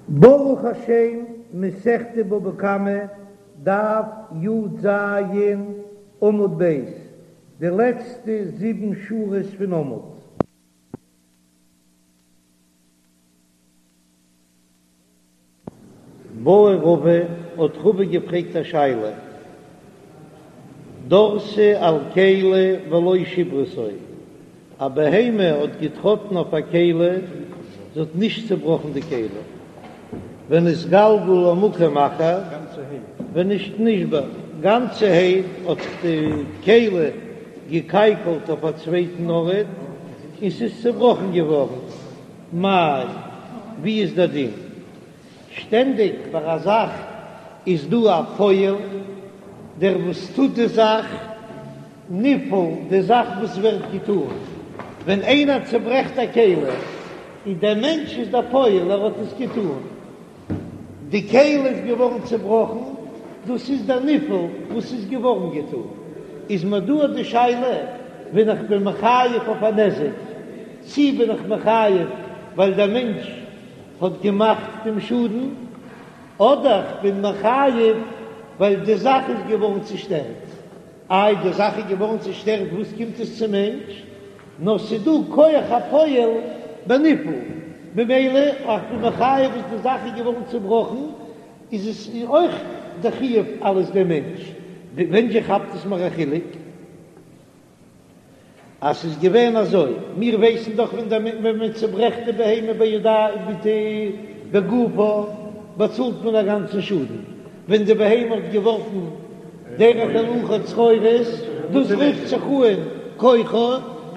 ברוך השם, מסכת בבא קמא, דף י"ז, עמוד ב', די לעצטע זיבן שורות פון עמוד. בעי רבא, האט רבא געפרעגט א שאלה, דרסה על כלי ולא שיברתו, א בהמה האט געטראטן אויף א כלי, זי האט נישט צעבראכן די כלי, ונתגלגל למקום אחר, ונשתבר, גאנצערהייט האט זיך די כלי געקייקלט אויף א צווייטן ארט און ס'איז צעבראכן געווארן, מאי, ווי איז דער דין? שטענדיג ביי א זאך איז דא א פועל, דער וואס טוט די זאך, נפעל, די זאך וואס ווערט געטון. ווען איינער צעברעכט א כלי, איז דער מענטש איז דער פועל, ער האט עס געטון. די כלי איז געווארן צעבראכן, דאס איז דער נפעל וואס איז געווארן געטון. איז מיר דא די שאלה, ווען איך בין מחייב אויף א נזק, צי בין איך מחייב ווייל דער מענטש האט געמאכט דעם שאדן, אדער כ'בין מחייב ווייל די זאך איז געווארן צושטערט. איי די זאך איז געווארן צושטערט וואס קומט עס צום מענטש? נאר ס'דא כח הפועל בנפעל, ממילא איך בין מחייב וואס די זאך איז געווארן צובראכן איז עס אויך די חיוב אלעס דעם מענטש. ווען זשע כאפט עס מיר א חילוק? אז ס'איז געווען אזוי, מיר ווייסן דאך ווען דער ווען מען צוברעכט די בהמה בידיים מיט די בגופה באצאלט מען א גאנצן שאדן, ווען די בהמה האט געווארפן דרך הילוכה צרורות, דאס רופט זיך אן כוחו,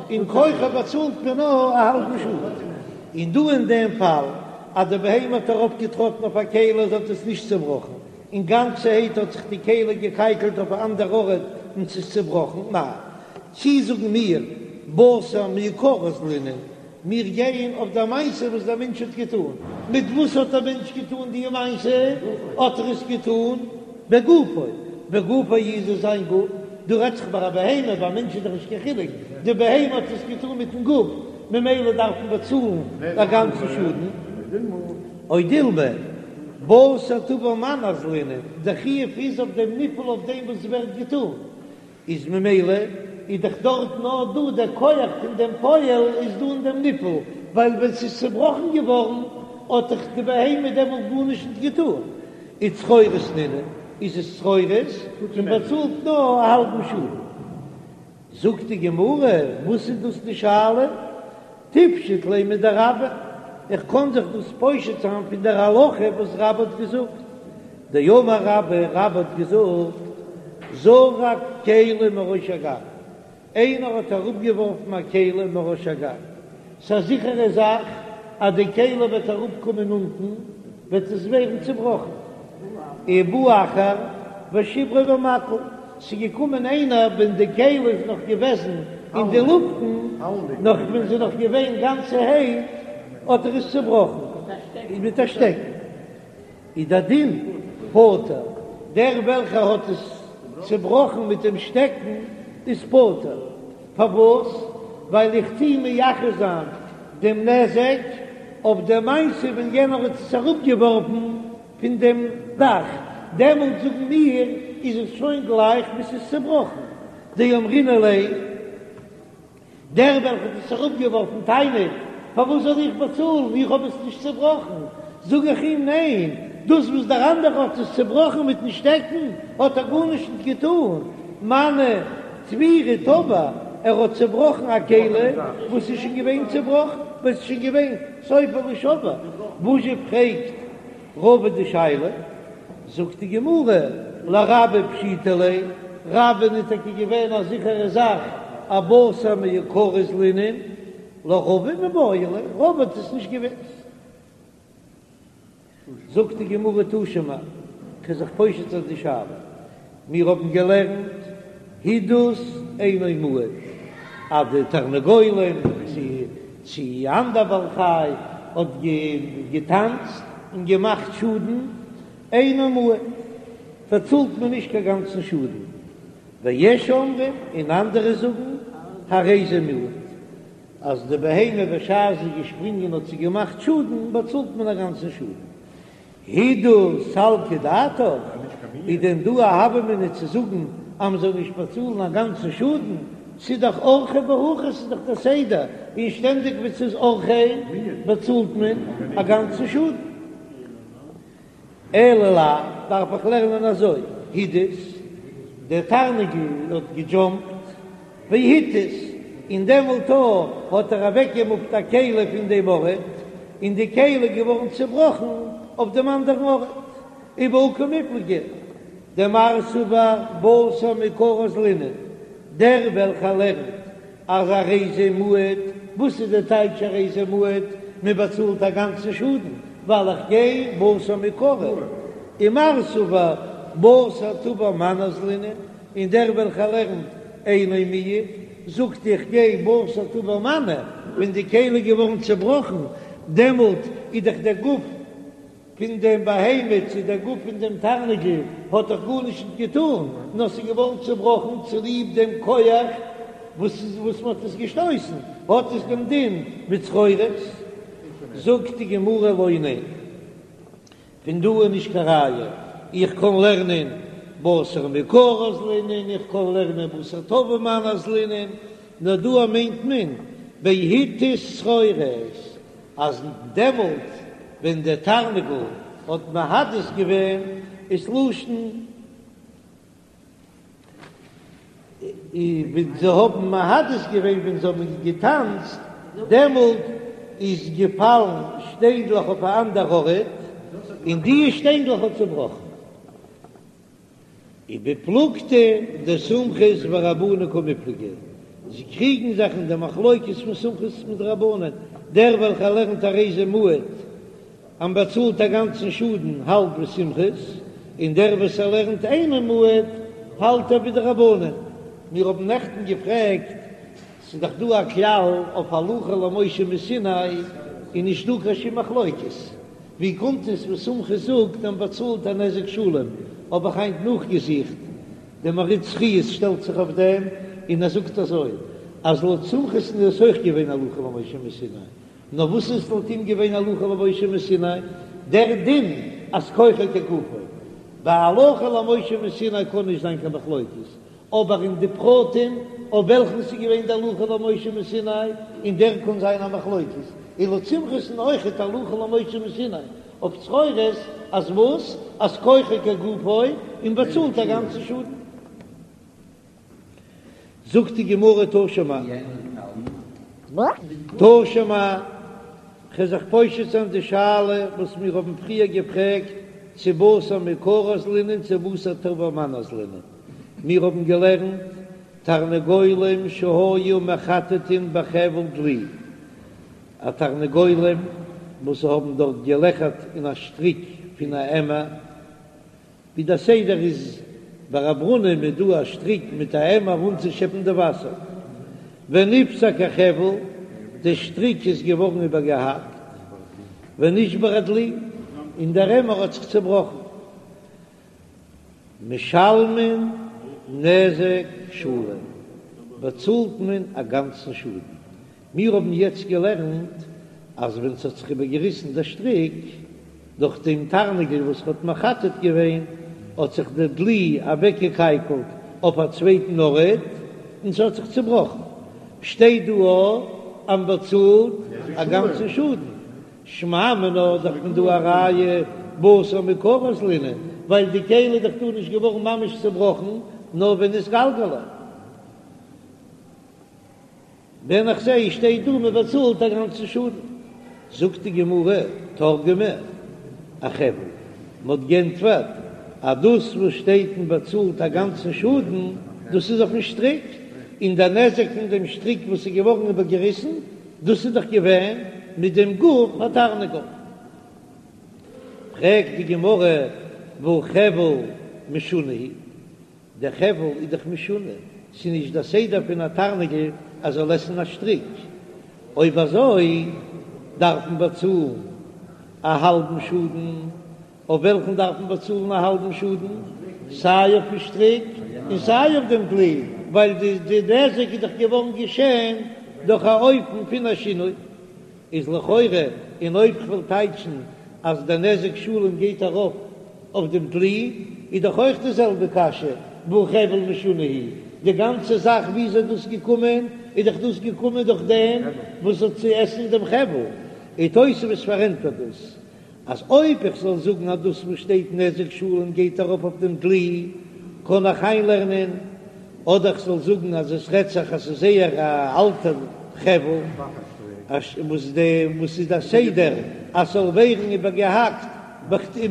און כוחו באצאלט מען נאר א האלבן שאדן. און דא אין דעם פאל אז די בהמה האט ארויפגעטראטן אויף א כלי זי האט עס נישט צובראכן, און גאנצערהייט האט זיך די כלי געקייקלט אויף א אנדער ארט און ס'איז צובראכן, מאי, צי זאגן מיר בתר מעיקרא אזלינן, מיר גייען אויף דער מעשה וואס דער מענטש האט געטאן, מיט וואס האט דער מענטש געטאן די מעשה? האט ער עס געטאן בגופו, בגופו איז עס זיין גוף, דא רעדט זיך ביי א בהמה, ביי א מענטש איז דאך נישט קיין חילוק, די בהמה האט עס געטאן מיטן גוף, ממילא דארף מען באצאלן א גאנצן שאדן. או דילמא, בתר תבר מנא אזלינן, דער חיוב איז אויף דעם נפעל אויף דעם וואס ווערט געטאן, איז ממילא איז דאך דארט נאר דא דער כח פון דעם פועל איז דא אין דעם נפעל, ווייל ווען ס'איז צובראכן געווארן האט דאך די בהמה דעמאלט גארנישט נישט געטאן, איז צרורות נינהו, איז עס צרורות און באצאלט נאר א האלבן שאדן. זאגט די גמרא, וואס איז דאס די שאלה? תפשוט ליה מדרבה, איך קען זיך דאס פושט זיין פון דער הלכה וואס רבה האט געזאגט, דאמר רבה, רבה האט געזאגט, זרק כלי מראש הגג, איינער האט אראפגעווארפן א כלי מראש הגג, ס'איז א זיכערע זאך אז די כלי וועט אראפקומען אונטן, וועט עס ווערן צובראכן. ובא אחר ושיברו במקל, ס'איז געקומען איינער ווען די כלי איז נאך געוועזן אין די לופטן, נאך ווען ס'איז נאך געווען גאנצערהייט, האט ער עס צובראכן מיט א שטעקן. איז דער דין פטור, דער וועלכער האט עס צובראכן מיט דעם שטעקן איז פטור, פארוואס? ווייל איך טוה מייחס זיין דעם נזק אויף דער מעשה ווען יענער האט עס אראפגעווארפן פון דעם דאך, דעמאלט זאגן מיר איז עס שוין גלייך ווי ס'איז צובראכן, דאמרינן ליה. דער וועלכער האט עס אראפגעווארפן טענה'ט, פארוואס זאל איך באצאלן, איך האב עס נישט צעבראכן. זאג איך אים, ניין, דאס וואס דער אנדערער האט עס צעבראכן מיטן שטעקן, האט ער גארנישט נישט געטאן, מנא תבירא תבר, ער האט צעבראכן א כלי וואס איז שוין געווען צעבראכן, וואס איז שוין געווען סופו לישבר. וואס זשע פרעגט רבא די שאלה, זאגט די גמרא, לרבה פשיטא ליה, רבה'ן איז טאקע געווען א זיכערע זאך אז בתר מעיקרא אזלינן, לרבא מיבעיא ליה, רבא האט עס נישט געוואוסט. זאגט די גמרא תא שמע, כ'וועל זיך פושט זיין די שאלה, מיר האבן געלערנט הידוס אינו מועד, אז די תרנגולים צו צו אנדער בעל חי האט געטאנצט און געמאכט שאדן, אינו מועד, באצאלט מען נישט קיין גאנצן שאדן, ויש אומרים, און אנדערע זאגן, הרי זה מועד, אז די בהמה בשעת זי איז געשפרינגען האט זי געמאכט שאדן, באצאלט מען א גאנצן שאדן. הידור סלקא דעתך, איז דען דא א הוה אמינא צו זאגן אז מ'זאל נישט באצאלן א גאנצן שאדן? ס'איז דאך אורחיה בהכי, ס'איז דאך דער סדר, און שטענדיג ווען ס'איז אורחיה באצאלט מען א גאנצן שאדן. אלא לאו, דארף איך לערנען אזוי, הידוס, דער תרנגול האט געדזשאמפט, והתיז, און דעמאלט האט ער אוועקגעמופט א כלי פון דעם ארט, און די כלי איז געווארן צעבראכן אויף דעם אנדערן ארט. ובהא קמיפלגי דמר סבר בתר מעיקרא אזלינן, דער וועלכער לערנט אז הרי זה מועד, וואס איז די טייטש הרי זה מועד? מען באצאלט א גאנצן שאדן ווייל איך גיי בתר מעיקרא, ומר סבר בתר תבר מנא אזלינן, און דער וועלכער לערנט אינו מועד זאגט איך גיי בתר תבר מנא, ווען די כלי איז געווארן צעבראכן דעמאלט איז דאך דער גוף פון דעם בהמה צו דער גוף פון דעם תרנגול האט דאך גארנישט נישט געטאן, נאר ס'איז געווארן צעבראכן צוליב דעם כח וואס וואס מ'האט עס געשטויסן, האט עס דעם דין ווי צרורות. זאגט די גמרא לא, ניין, פון דא איז נישט קיין ראיה, איך קען לערנען בתר מעיקרא אזלינן, איך קען לערנען בתר תבר מנא אזלינן, נאר דא מיינט מען בהתיז צרורות, אז דעמאלט ווען דער תרנגול האט מהדס געווען איז לשון ווען זיי האבן מהדס געווען ווען זיי האבן געטאנצט דעמאלט איז געפאלן שטיינדלעך אויף א אנדער ארט און די שטיינדלעך האט צובראכן. ובפלוגתא דסומכוס ורבנן קמיפלגי, זיי קריגן זיך אין די מחלוקת פון סומכוס מיט רבנן, דער וועלכער לערנט הרי זה מועד אז מ'באצאלט א גאנצן שאדן האלט ווי סומכוס, און דער וואס ער לערנט אינו מועד האלט ער ווי די רבנן. מיר האבן נעכטן געפרעגט, ס'איז דאך דא א כלל אויף הלכה למשה מסיני איז נישט דא קיין שום מחלוקת, ווי קומט עס וואס סומכוס זאגט אז מ'באצאלט א נזק שלם? האב איך היינט נאכגעזוכט, דער מהרי"ט חיות שטעלט זיך אויף דעם און ער זאגט אזוי, אז לויט סומכוס'ן איז עס אויך געווען הלכה למשה מסיני, נאר וואס איז לויט אים געווען הלכה למשה מסיני? דער דין אז כוחו כגופו. ביי הלכה למשה מסיני קען נישט זיין קיין מחלוקת, אבער אין די פרטים אויף וועלכן ס'איז געווען די הלכה למשה מסיני, אין דער קען זיין א מחלוקת, און לויט סומכוס'ן אויכעט הלכה למשה מסיני אויף צרורות, אז וואס? אז כוחו כגופו און באצאלט א גאנצן שאדן. זאגט די גמרא תא שמע, תא שמע, כ'וועל זיך פושט זיין די שאלה וואס מיר האבן פריער געפרעגט, צו בתר מעיקרא אזלינן צו בתר תבר מנא אזלינן. מיר האבן געלערנט תרנגולים שהיו מחטטין בחבל דלי, א תרנגולים וואס האבן דארט געלעכערט אין א שטריק פון א עמער, ווי דער סדר איז ביי א ברונעם איז דא א שטריק מיט א עמער אנצושעפן די וואסער, ונפסק החבל, די שטריק איז געווארן איבערגעהאקט, ונשבר הדלי, און דער עמער האט זיך צעבראכן. משלמין נזק שלם, באצאלט מען א גאנצן שאדן. מיר האבן יעצט געלערנט אז ווען ס'האט זיך איבערגעריסן דער שטריק דורך דעם תרנגול וואס האט מחטט געווען, האט זיך דער דלי אוועקגעקייקלט אויף א צווייטן ארט און ס'האט זיך צעבראכן. שטייט דא אז מ'באצאלט א גאנצן שאדן. שמע מינה דאך פון דא א ראיה בתר מעיקרא אזלינן, ווייל די כלי איז דאך דא נישט געווארן ממש צעבראכן נאר ונתגלגלה. ווען איך זעה שטייט דא מען באצאלט א גאנצן שאדן, זאגט די גמרא, תרגמה אחבל, מען האט גענטפערט אז דאס וואס שטייט מען באצאלט א גאנצן שאדן, דאס איז אויפן שטריק, און דער נזק פון דעם שטריק וואס איז געווארן איבערגעריסן, דאס איז דאך געווען מיט דעם גוף התרנגול. פרעגט די גמרא, והא חבל משונה הוא, דער חבל איז דאך משונה, ס'איז נישט דער סדר פון א תרנגול אז זאל עסן א שטריק, אויב אזוי דארף מען באצאלן א האלבן שאדן, אויף וועלכן דארף מען באצאלן א האלבן שאדן? סיי אויפן שטריק און סיי אויף דעם דלי, ווייל די נזק איז דאך געווארן געשען דורך א אופן פון א שינוי. איז לכאורה, און אויב כ'וועל טייטשן. אז דער נזק שלם גייט ארויף אויף דעם דלי, איז דאך אויך די זעלבע קשיא, והא חבל משונה הוא, די גאנצע זאך ווי איז דאס געקומען, איז דאך דאס געקומען דורך דעם וואס האט צו עסן דעם חבל, און תוספות פארענטפערט דאס אז אויב איך זאל זאגן אז דאס וואס שטייט נזק שלם גייט ארויף אויף דעם דלי, קען איך איינלערנען, אדער איך זאל זאגן אז עס רעדט זיך אז ס'איז זייער א אלטע חבל, וואס די וואס איז די סדר אז ס'זאל ווערן איבערגעהאקט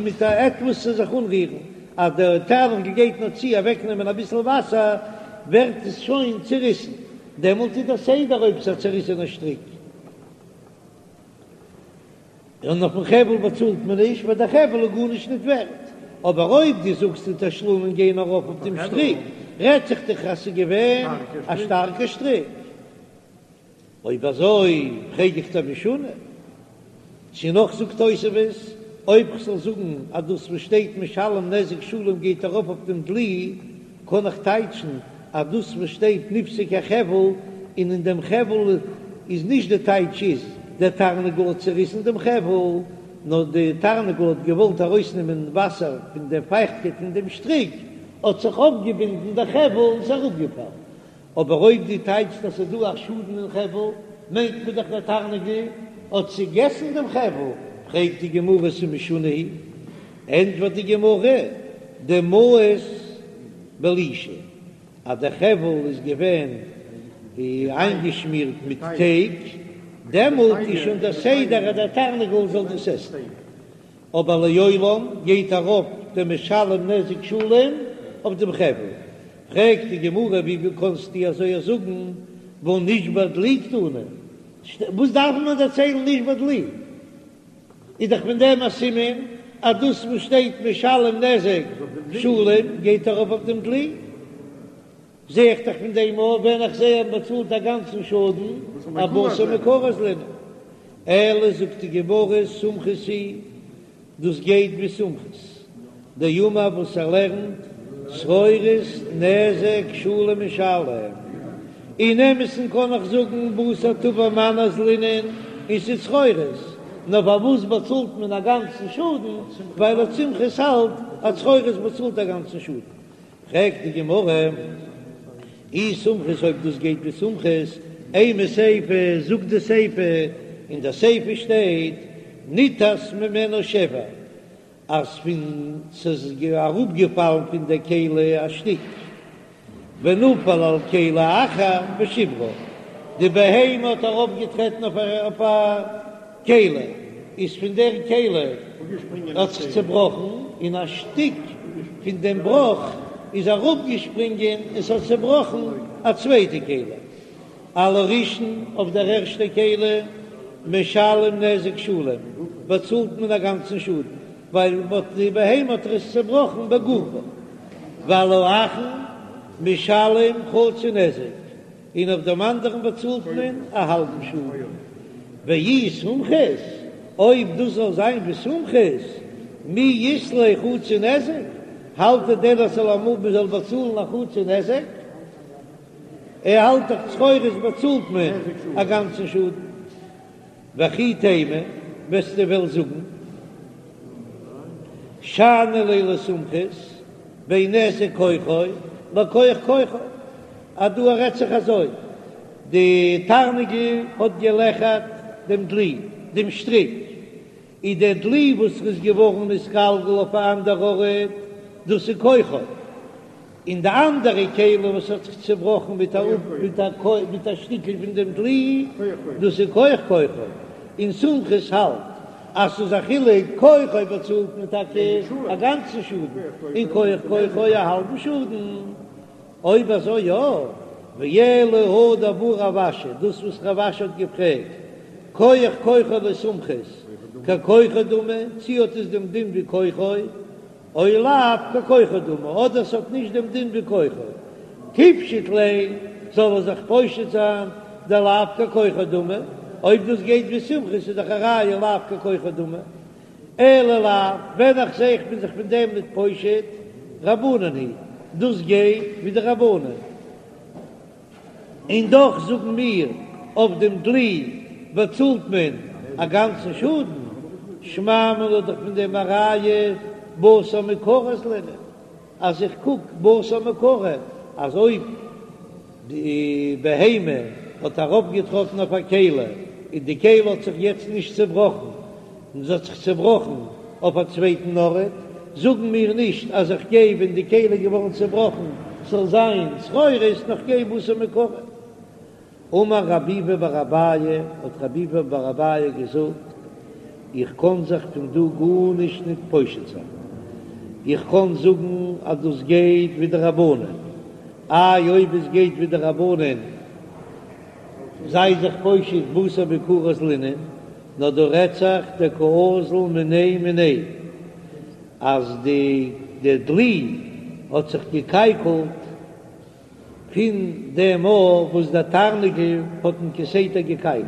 מיט א עטוואס צו זיך אנרירן, אז דער תרנגול גייט נאר צו אוועקנעמען אביסל וואסער ווערט עס שוין צוריסן, דעמאלט איז דער סדר אויב ס'איז א צוריסענע שטריק. און אויפן חבל באצאלט מען נישט ווייל דער חבל איז גארנישט ניט ווערט, אבער אויב דו זאגסט די תשלומין גייען ארויף אויף דעם שטריק, רעדט זיך דאך אז ס'איז געווען א שטארקע שטריק. אויב אזוי פרעג איך דיר משונה. צו נאך זאגט תוספות, אויב כ'זאל זאגן אז דאס וואס שטייט משלם נזק שלם גייט ארויף אויף דעם דלי, קען איך טייטשן אז דאס וואס שטייט נפסק החבל און אין דעם חבל איז נישט די טייטש איז דער תרנגול האט צעריסן דעם חבל, נאר די תרנגול האט געוואלט ארויסנעמען וואסער פון דער פייכטקייט פון דעם שטריק, האט זיך אויפגעבינדן דער חבל און ס'איז אראפגעפאלן. אבער אויב דו טייטשט אז ס'איז דא א שאדן אין חבל, מיינט מען דאך דער תרנגול האט צעגעסן דעם חבל, פרעגט די גמרא ס'איז משונה הוא, ענטפערט די גמרא, דמאוס בלישא, אז דער חבל איז געווען איינגעשמירט מיט טייג, דעמאלט איז שוין דער סדר אז דער תרנגול זאל דאס עסן. אבער לעולם גייט ארויף דער משלם נזק שלם אויף דעם חבל. פרעגט די גמרא ווי קענסטו אזוי זאגן והא נשבר דלי קתני, וואס דארף מען דערציילן נשבר דלי? איז דאך פון דעם א סימן אז דאס וואס שטייט משלם נזק שלם גייט ארויף אויף דעם דלי. זע איך דאך פון דעם אויך ווען איך זע אז מ'באצאלט א גאנצן שאדן אבתר מעיקרא אזלינן. אלא זאגט די גמרא סומכוס היא, דאס גייט ווי סומכוס דאמר וואס ער לערנט צרורות נזק שלם משלם. אין אמת'ן קען איך זאגן בתר תבר מנא אזלינן און ס'איז צרורות, נאר פארוואס באצאלט מען א גאנצן שאדן? ווייל לויט סומכוס האלט אז צרורות באצאלט א גאנצן שאדן. פרעגט די גמרא, אי סומכוס אויב דאס גייט ווי סומכוס, אימא סיפא, זאגט די סיפא, אין די סיפא שטייט ניתז ממנה שבר, אז פון ס'איז אראפגעפאלן פון די כלי א שטיק, ונפל על כלי אחר ושברה, די בהמה האט ארויפגעטרעטן אויף א כלי, איז פון דער כלי האט זיך צעבראכן, און א שטיק פון דעם בראך איז אראפגעשפרינגען און ס'האט צעבראכן א צווייטע כלי. על הראשון, אויף דער ערשטער כלי, משלם נזק שלם, באצאלט מען א גאנצן שאדן, ווייל די בהמה האט עס צעבראכן בגופו, ועל האחרון משלם חצי נזק, און אויף דעם אנדערן באצאלט מען א האלבן שאדן. ואי סומכוס, אויב דאס זאל זיין ווי סומכוס, מי אית ליה חצי נזק, האלט ער דען אז ס'זאל אמאל מען זאל באצאלן א חצי נזק? ער האלט דאך צרורות באצאלט מען א גאנצן שאדן. וכי תימא, וועסטו וועלן זאגן, שאני ליה לסומכוס, בין נזק כוחו לכוח כוחו, אז דא רעדט זיך אזוי, די תרנגול האט געלעכערט דעם דלי, דעם שטריק, איז דער דלי וואס איז געווארן נתגלגל אויף א אנדער ארט, דאס איז כוחו, און די אנדערע כלי וואס האט זיך צעבראכן מיט א מיט א שטיקל פון דעם דלי, דאס איז כוח כוחו, און סומכוס האלט אז ס'איז א חילוק, כוחו באצאלט מען טאקע א גאנצן שאדן, און כוח כוחו א האלבן שאדן. אויב אזוי יא, ואלא הא דבעי רב אשי, דאס וואס רב אשי האט געפרעגט, כוח כוחו לסומכוס, ככוחו דמי, צי האט עס דעם דין ווי כוחו, או לאו ככוחו דמי, אדער ס'האט נישט דעם דין ווי כוחו, תיפשוט ליה, זאל ער זיך פושט זיין, דלאו ככוחו דמי, אויב דאס גייט ווי סומכוס איז דאך א ראיה לאו ככוחו דמי, אלא לאו, ווען איך זע איך בין זיך פון דעם ניט פושט, רבנן היא, דאס גייט ווי די רבנן. און דאך זאגן מיר, אויף דעם דלי באצאלט מען א גאנצן שאדן. שמע מינה דאך פון דעם א ראיה בתר מעיקרא אזלינן, אז איך קוק בתר מעיקרא אז אויב די בהמה האט ארויפגעטראטן אויף א כלי און די כלי האט זיך יעצט נישט צעבראכן און זי האט זיך צעבראכן אויף א צווייטן ארט, זאגן מיר נישט אז איך גיי ווען די כלי איז געווארן צעבראכן ס'זאל זיין צרורות נאר כ'גיי בתר מעיקרא. אמר רב ביבי בר אביי, האט רב ביבי בר אביי געזאגט, איך קען זיך פון דא גארנישט ניט פושט זיין, איך קען זאגן אז דאס גייט ווי די רבנן, איי אויב עס גייט ווי די רבנן זיי זיך פושט בתר מעיקרא אזלינן, נאר דא רעדט זיך דקאזיל מיניה מיניה, אז די די דלי האט זיך געקייקלט פון דעם מאל וואס דער תרנגול האט אים כסדר געקייקלט,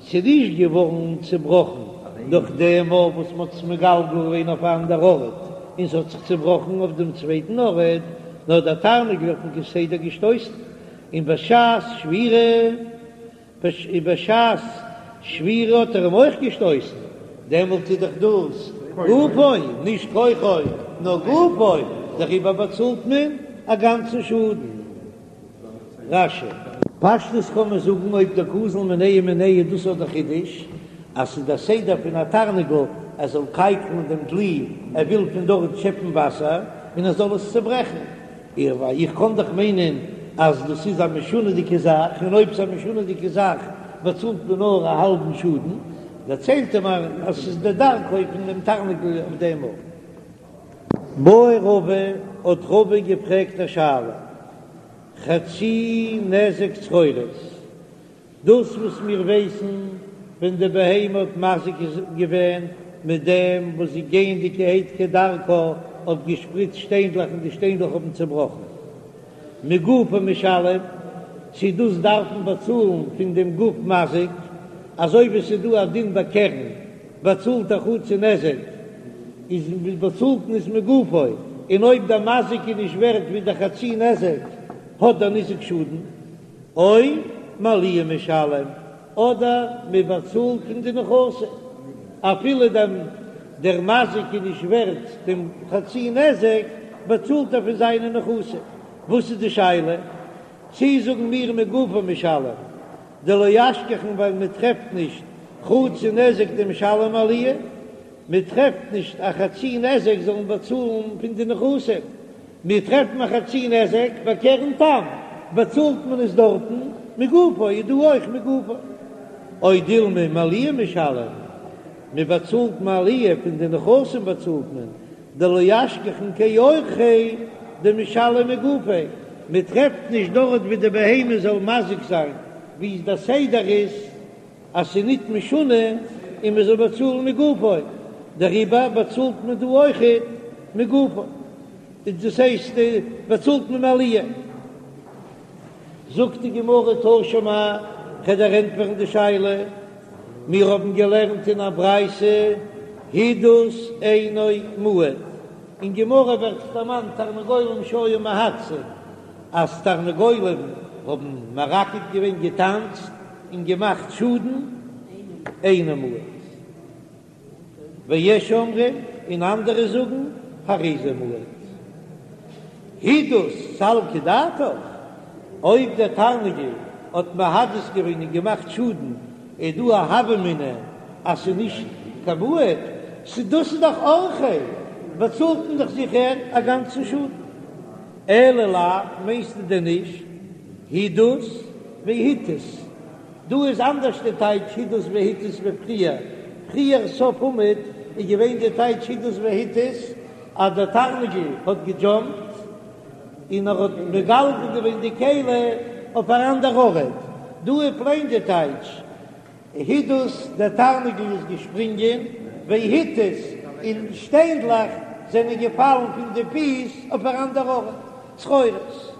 ס'איז נישט געווארן צעבראכן דורך דעם מאל וואס מ'האט עס מגלגל געווען אויף א אנדער ארט און ס'האט זיך צעבראכן אויף דעם צווייטן ארט, נאר דער תרנגול האט אים כסדר געשטויסן, און בשעת שבירה. בשעת שבירה האט ער אים אויך געשטויסן, דעמאלט איז דאך דאס גופו, נישט כוחו, נאר גופו, דעריבער באצאלט מען א גאנצן שאדן. רש"י. פשטות קען מען זאגן אויב דקאזיל מיניה מיניה דאס איז דער חידוש אז ס'איז דער סדר פון א תרנגול ער זאל קייקלן דעם דלי ער וויל פון דארט שעפן וואסער און ער זאל עס צוברעכן, איך איך קען דאך מיינען אז דאס איז א משונה'דיגע זאך, און אויב ס'איז א משונה'דיגע זאך באצאלט מען נאר א האלבן שאדן, דערציילט ער מיר אז ס'איז די דרכו פון דעם תרנגול אויף דעם ארט. בעי רבא, האט רבא געפרעגט א שאלה, חצי נזק צרורות, דאס וואס מיר ווייסן ווען די בהמה האט מזיק געווען מיט דעם וואס זי גייענדיגערהייט כדרכה האט געשפריצט שטיינדלעך און די שטיינדלעך האבן צעבראכן מגופו משלם, צו דאס דארף מען באצאלן פון דעם גוף מזיק, אזוי ווי ס'איז דא א דין ביי קרן באצאלט א חצי נזק איז באצאלט מען עס מגופו, און אויב דער מזיק איז נישט ווערט ווי דער חצי נזק האט דער ניזק שאדן. או מעליה משלם, אדער מען באצאלט פון די נכסים, אפילו דעם דער מזיק איז נישט ווערט דעם חצי נזק, באצאלט ער פון זיינע נכסים. וואס איז די שאלה? צי זאגן מיר מגופו משלם, דלא אשכחן ווייל מען טרעפט נישט חצי נזק דמשלם מעליה, מען טרעפט נישט א חצי נזק זאל מען באצאלן פון די נכסים, מיר טרעפן א חצי נזק ביי קרן תם, באצאלט מען עס דארטן מגופו, איז דא אויך מגופו. או דילמא מעליה משלם, מען באצאלט מעליה פון די נכסים באצאלט מען, דלא אשכחן כאורחיה דמשלם מגופיה, מען טרעפט נישט דארט ווי די בהמה זאל מזיק זיין, ווי דער סדר איז אז ס'איז ניט משונה און מען זאל באצאלן מגופו, דעריבער באצאלט מען דא אויכעט מגופו, דאס הייסט באצאלט מען מעליה. זאגט די גמרא תא שמע, כ'וועל דיר ענטפערן די שאלה, מיר האבן געלערנט אין א ברייתא הידוס אינו מועד, אין גמרא ווערט דערמאנט תרנגולים שהיו מהדסין, אז תרנגולים האבן מרקד געווען געטאנצט און געמאכט שאדן, אינו מועד. ויש אומרים, און אנדערע זאגן, הרי זה מועד. הידוס סלקא דעתך, אויב דער תרנגול האט מהדס געווען און געמאכט שאדן, איז דא א הוה אמינא אז ס'איז נישט קיין מועד, ס'דאס איז דאך אורחיה, באצאלט מען דאך זיכער א גאנצן שאדן. אלא לאו, מיינסטו דען נישט הידוס והתיז? דא איז אנדערש די טייטש הידוס והתיז ווי פריער, פריער סוף עמוד איז געווען די טייטש הידוס והתיז אז דער תרנגול האט געדזשאמפט און ער האט מגלגל געווען די כלי אויף אן אנדער ארט, דא איז פלעין די טייטש הידוס, דער תרנגול איז געשפרינגען, והתיז, און שטיינדלעך זענען געפאלן פון די פיס אויף אן אנדער ארט, צרורות.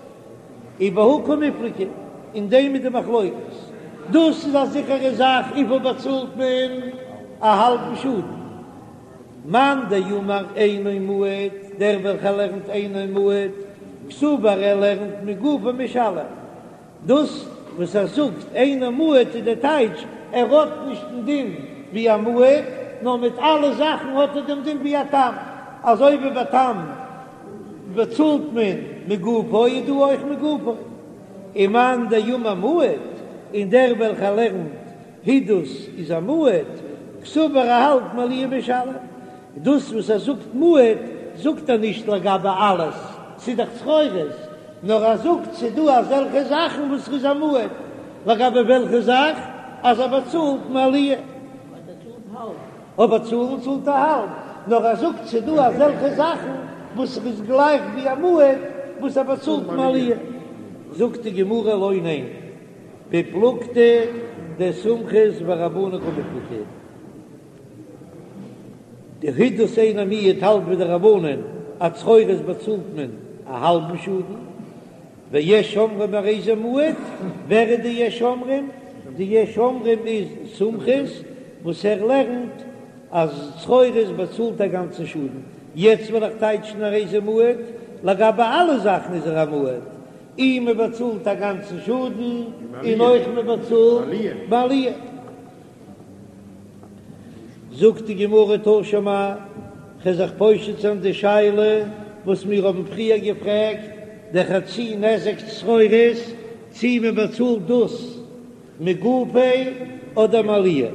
ובהא קמיפלגי, אין דעם איז די מחלוקת. דאס איז א זיכערע זאך, וויפיל באצאלט מען? א האלבן שאדן. מאן דאמר אינו מועד, דער וועלכער לערנט אינו מועד, קסבר ער לערנט מגופו משלם. דאס וואס ער זאגט אינו מועד איז די טייטש ער האט נישט דעם דין ווי א מועד. נאר מיט אלע זאכן האט ער דעם דין ווי א תם, אזוי ווי ביי תם באצאלט מען מגופו איז דא אויך מגופו. ומאן דאמר מועד, און דער וועלכער לערנט הידוס איז א מועד, קסבר ער האלט מעליה משלם. דאס וואס ער זאגט מועד זאגט ער נישט לגבי אלעס, ס'איז דאך צרורות, נאר ער זאגט ס'איז דא אזעלכע זאכן וואס ר'איז א מועד, לגבי וועלכע זאך? אז ער באצאלט מעליה. אבער צאלן צאלט ער האלב, נאר ער זאגט ס'איז דא אזעלכע זאכן וואס ר'איז גלייך ווי א מועד וואס ער באצאלט מעליה. זאגט די גמרא לא ניין, בפלוגתא דסומכוס ורבנן קמיפלגי. די הידוס אינו מועד האלט ווי די רבנן אז צרורות באצאלט מען א האלבן שאדן, ויש אומרים הרי זה מועד, ווער איז די יש אומרים? די יש אומרים איז סומכוס וואס ער לערנט אז צרורות באצאלט א גאנצן שאדן, יעצט וועל איך טייטשן הרי זה מועד, לגבי אלע זאכן איז ער א מועד, אי מען באצאלט א גאנצן שאדן און אויך מען באצאלט מעליה. זאגט די גמרא תא שמע, כ'וועל זיך פושט זיין די שאלה וואס מיר האבן פריער געפרעגט, די חצי נזק צרורות, צי מען באצאלט דאס מגופו אדער מעליה.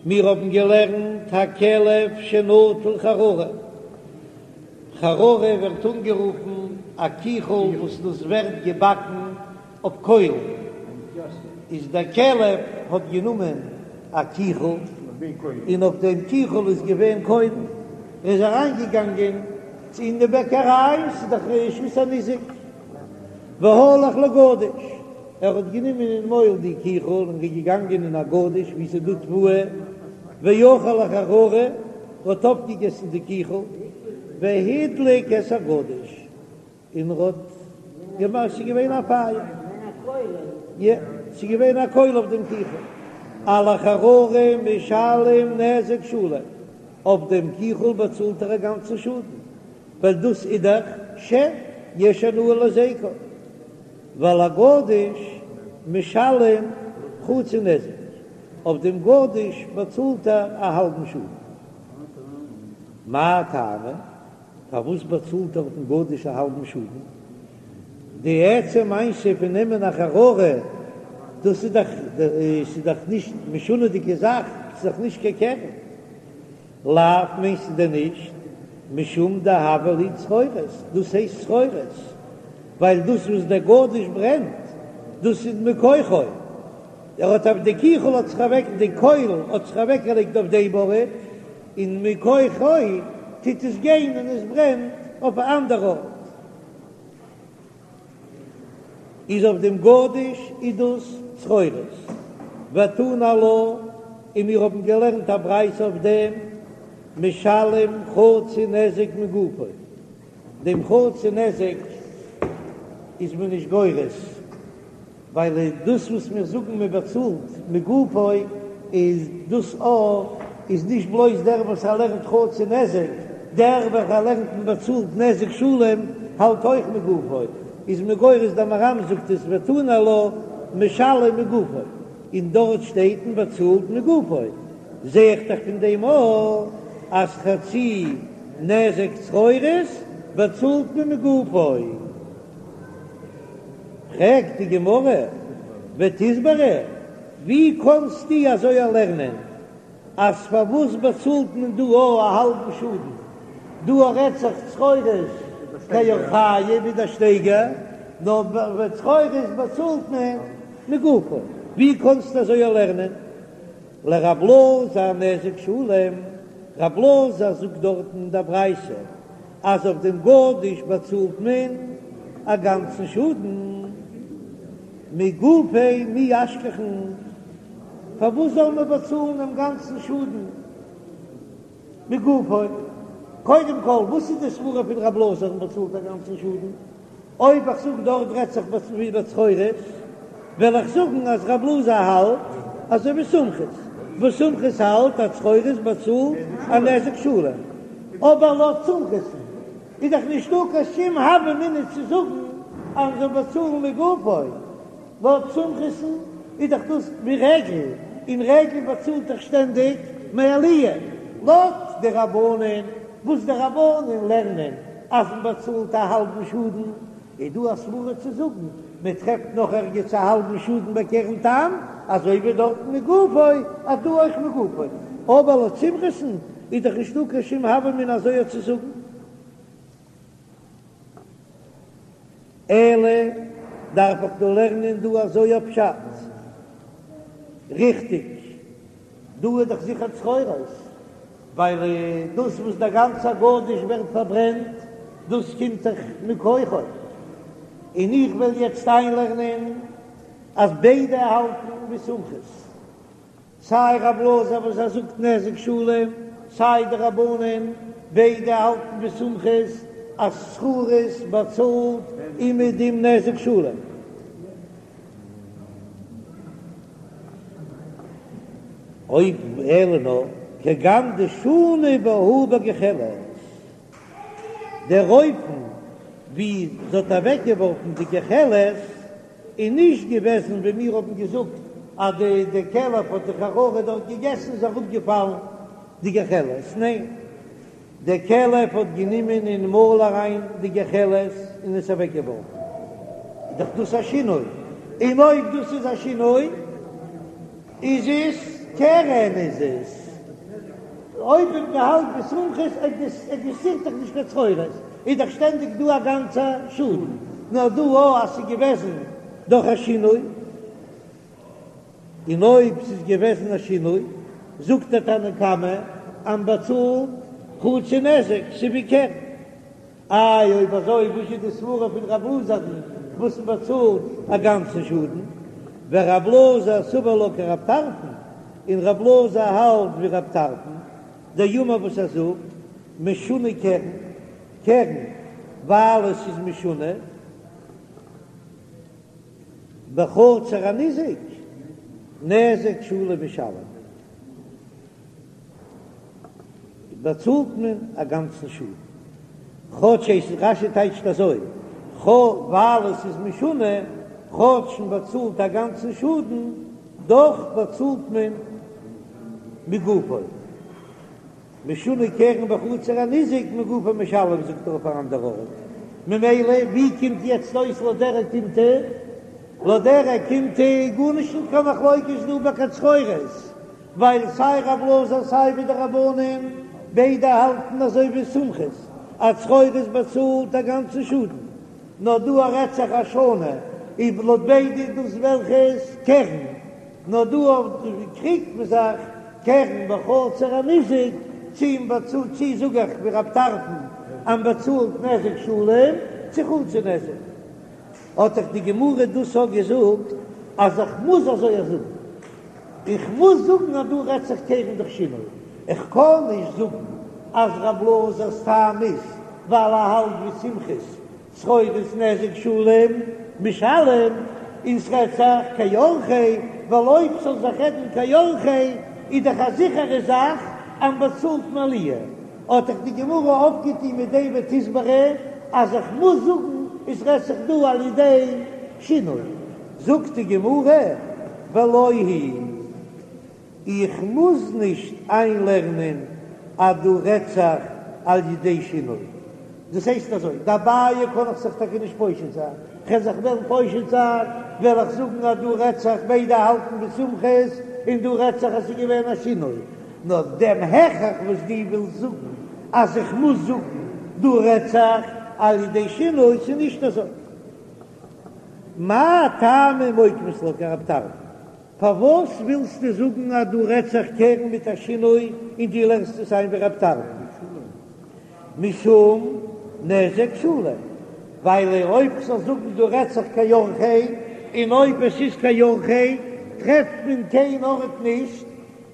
מיר האבן געלערנט הכלב שנטל חררה, חררה ווערט אנגערופן א קיכל וואס דאס ווערט געבאקן אויף קוילן, איז דער כלב האט גענומען א קיכל, און אויף דעם קיכל איז געווען קוילן, ער איז אריין געגאנגען אין די בעקעריי, ס'איז דאך רשות הניזק, והלך לגדיש, ער האט גענומען אין מויל די קיכל און איז געגאנגען אין א גדיש וואו ס'איז דא תבואה, ואכל החררה, האט אויפגעגעסן די קיכל, והדליק את הגדיש. און ער האט געמאכט, ס'איז געווען א פייער, יא, ס'איז געווען א קויל אויף דעם קיכל, על החררה משלם נזק שלם, אויף דעם קיכל באצאלט ער א גאנצן שאדן, ווייל דאס איז דאך שן, יש הנאה להזיקו, ועל הגדיש משלם חצי נזק, אויף דעם גדיש באצאלט ער א האלבן שאדן. מאי טעמא? פארוואס באצאלט ער אויפן גדיש א האלבן שאדן? די עצם מעשה פון נעמען א חררה, דאס איז דאך ס'איז דאך נישט משונה'דיגע זאך, ס'איז דאך נישט קיין קרן. לאו מיינסטו דען נישט משום דהוה ליה צרורות, דאס הייסט צרורות, ווייל דאס וואס דער גדיש ברענט, דאס איז מכוחו, ער האט אויף די קיכל האט זיך אוועק די קויל האט זיך אוועקגעלייגט אויף דעם ארט, און מכוחו טוט עס גיין און עס ברענט אויף א אנדער ארט, איז אויף דעם גדיש איז דאס צרורות, ותנא עלה, און מיר האבן געלערנט א ברייתא אויף דעם, משלם חצי נזק מגופו, דעם חצי נזק איז מען נישט גורס. ווייל דאס וואס מיר זאגן מען באצאלט מגופו איז דאס א איז נישט בלויז דער וואס ער לערנט חצי נזק, דער וועלכער לערנט מען באצאלט נזק שלם האלט אויך מגופו, איז מען גורס דער מהר"ם זאגט עס ותנא עלה משלם מגופו, און דארט שטייט מען באצאלט מגופו, זע איך דאך פון דעם א אז חצי נזק צרורות באצאלט מען מגופו. פרעגט די גמרא, ותסברא, ווי קאנסטו אזוי לערנען אז פארוואס באצאלט מען דא א האלבן שאדן, דא רעדט זיך צרורות כאורחיה ווי דער שטייגער, נאר ביי צרורות באצאלט מען מגופו, ווי קאנסטו אזוי לערנען? לרב אלעזר נזק שלם, רב אלעזר זאגט דארטן אין דער ברייתא אז אויף דעם גדיש באצאלט מען א גאנצן שאדן, מגופיה מי אשכחן, פארוואס זאל מען באצאלן דעם גאנצן שאדן מגופו? קודם כל, וואס איז די סברא פון רב אלעזר מען באצאלט א גאנצן שאדן? אויב איך זאג דארט רעדט זיך ווי ביי צרורות, וועל איך זאגן אז רב אלעזר האלט אזוי ווי סומכוס, וואס סומכוס האלט אז צרורות באצאלט א נזק שלם, אבער לויט סומכוס'ן איז דאך נישטא קיין שום הוה אמינא צו זאגן אז מ'זאל באצאלן מגופו, לויט סומכוס'ן איז דאך דאס ווי רגל, און רגל באצאלט דאך שטענדיג מעליה. לויט די רבנן וואס די רבנן לערנען אז מען באצאלט א האלבן שאדן, איז דא א סברא צו זאגן מען טרעפט נאך ערגעץ א האלבן שאדן ביי קרן תם, אזוי ווי דארטן מגופו אז דא אויך מגופו, אבער לויט סומכוס'ן איז דאך נישטא קיין שום הוה אמינא אזוי צו זאגן. אלא דארף איך דא לערנען דא אזוי א פשט? ריכטיג, דא איז דאך זיכער צרורות, ווייל דאס וואס דער גאנצער גדיש ווערט פארברענט, דאס קומט דאך מכוחו, און איך וועל יעצט איינלערנען אז ביידע האלטן ווי סומכוס. סיי רב אלעזר וואס ער זאגט נזק שלם, סיי די רבנן, ביידע האלטן ווי סומכוס אז צרורות באצאלט אומעדום נזק שלם. אויב אלא נאר כגון דשנו בהו בגחלת, דער אופן ווי זי האט אוועקגעווארפן די גחלת איז נישט געוועזן ווי מיר האבן געזאגט אז די די כלב האט די חררה דארט געגעסן איז אראפגעפאלן די גחלת, ניין דער כלב האט גענומען אין מויל אריין די גחלת און עס אוועקגעווארפן, איז דאך דאס א שינוי, און אויב דאס איז א שינוי איז עס קרן איז עס אויב מען האלט ווי סומכוס עקזיסטירט דאך נישט קיין צרורות איז דאך שטענדיג דא א גאנצע שאדן נאר דא או אז ס'איז געוועזן דורך א שינוי און אויב ס'איז געוועזן א שינוי זאגט דער תנא קמא אז מ'באצאלט חצי נזק ס'איז ווי קרן. איי אויב אזוי וואס איז די סברה פון רב אלעזר'ן וואס מען באצאלט א גאנצן שאדן? ורב אלעזר סבר לה כרב טרפון, און רב אלעזר האלט ווי רב טרפון, דאמר וואס ער זאגט, משונה קרן, קרן ווייל עס איז משונה, בחצר הניזק, נזק שלם משלם. באצאלט מען א גאנצן שאדן. כאטש עס איז רש"י טייטשט אזוי, ווייל עס איז משונה, כאטש מען באצאלט א גאנצן שאדן, דאך באצאלט מען מגופו. משונה קרן בחצר הניזק מגופו משלם זאגט ער אויף אן אנדער ארט. ממילא ווי קומט יעצט אויס לויט דער אוקימתא? לויט דער אוקימתא איז גארנישט נישט קיין מחלוקת דא ביי קיין צרורות. ווייל סיי רב אלעזר סיי ווי די רבנן ביידע האלטן אזוי ווי סומכוס אז צרורות באצאלט א גאנצן שאדן, נאר דא רעדט זיך אז שנו איז לויט ביידע איז דאס וועלכעס קרן, נאר דא קריגט מען זיך קרן בחצר הניזק צו מען באצאלט צו זאג איך ווי רב טרפון אז מען באצאלט נזק שלם צו חצי נזק. האט דאך די גמרא דאס אויך געזאגט אז איך מוז אזוי זאגן. איך מוז זאגן אז דא רעדט זיך קרן דורך שינוי, איך קען נישט זאגן אז רב אלעזר'ס טעם איז ווייל ער האלט ווי סומכוס צרורות נזק שלם משלם און ס'רעדט זיך כאורחיה, ווייל אויב ס'זאל זיך רעדן כאורחיה איז דאך א זיכערע זאך אז מ'באצאלט מעליה, האט דאך די גמרא אויפגעטון מיט דעם ותסברא אז איך מוז זאגן עס רעדט זיך דא על ידי שינוי. זאגט די גמרא, ולא היא, איך מוז נישט איינלערנען אז דא רעדט זיך על ידי שינוי. דאס הייסט אזוי, דאביי קען איך זיך טאקע נישט פושט זיין, כ'וועל זיך וועלן פושט זיין, וועל איך זאגן אז דא רעדט זיך ביידע האלטן ווי סומכוס, און דא רעדט זיך אז ס'איז געווען א שינוי. נאר דעם הכרח וואס דו ווילסט זאגן אז איך מוז זאגן דא רעדט זיך על ידי שינוי, ס'איז נישט אזוי. מאי טעמא מוקמת לה כרב טרפון? פארוואס ווילסטו זאגן אז דא רעדט זיך קרן מיט א שינוי און דו לערנסט עס איין ווי רב טרפון? משום נזק שלם, ווייל אויב כ'זאל זאגן דא רעדט זיך כאורחיה, און אויב עס איז כאורחיה טרעפט מען קיין ארט נישט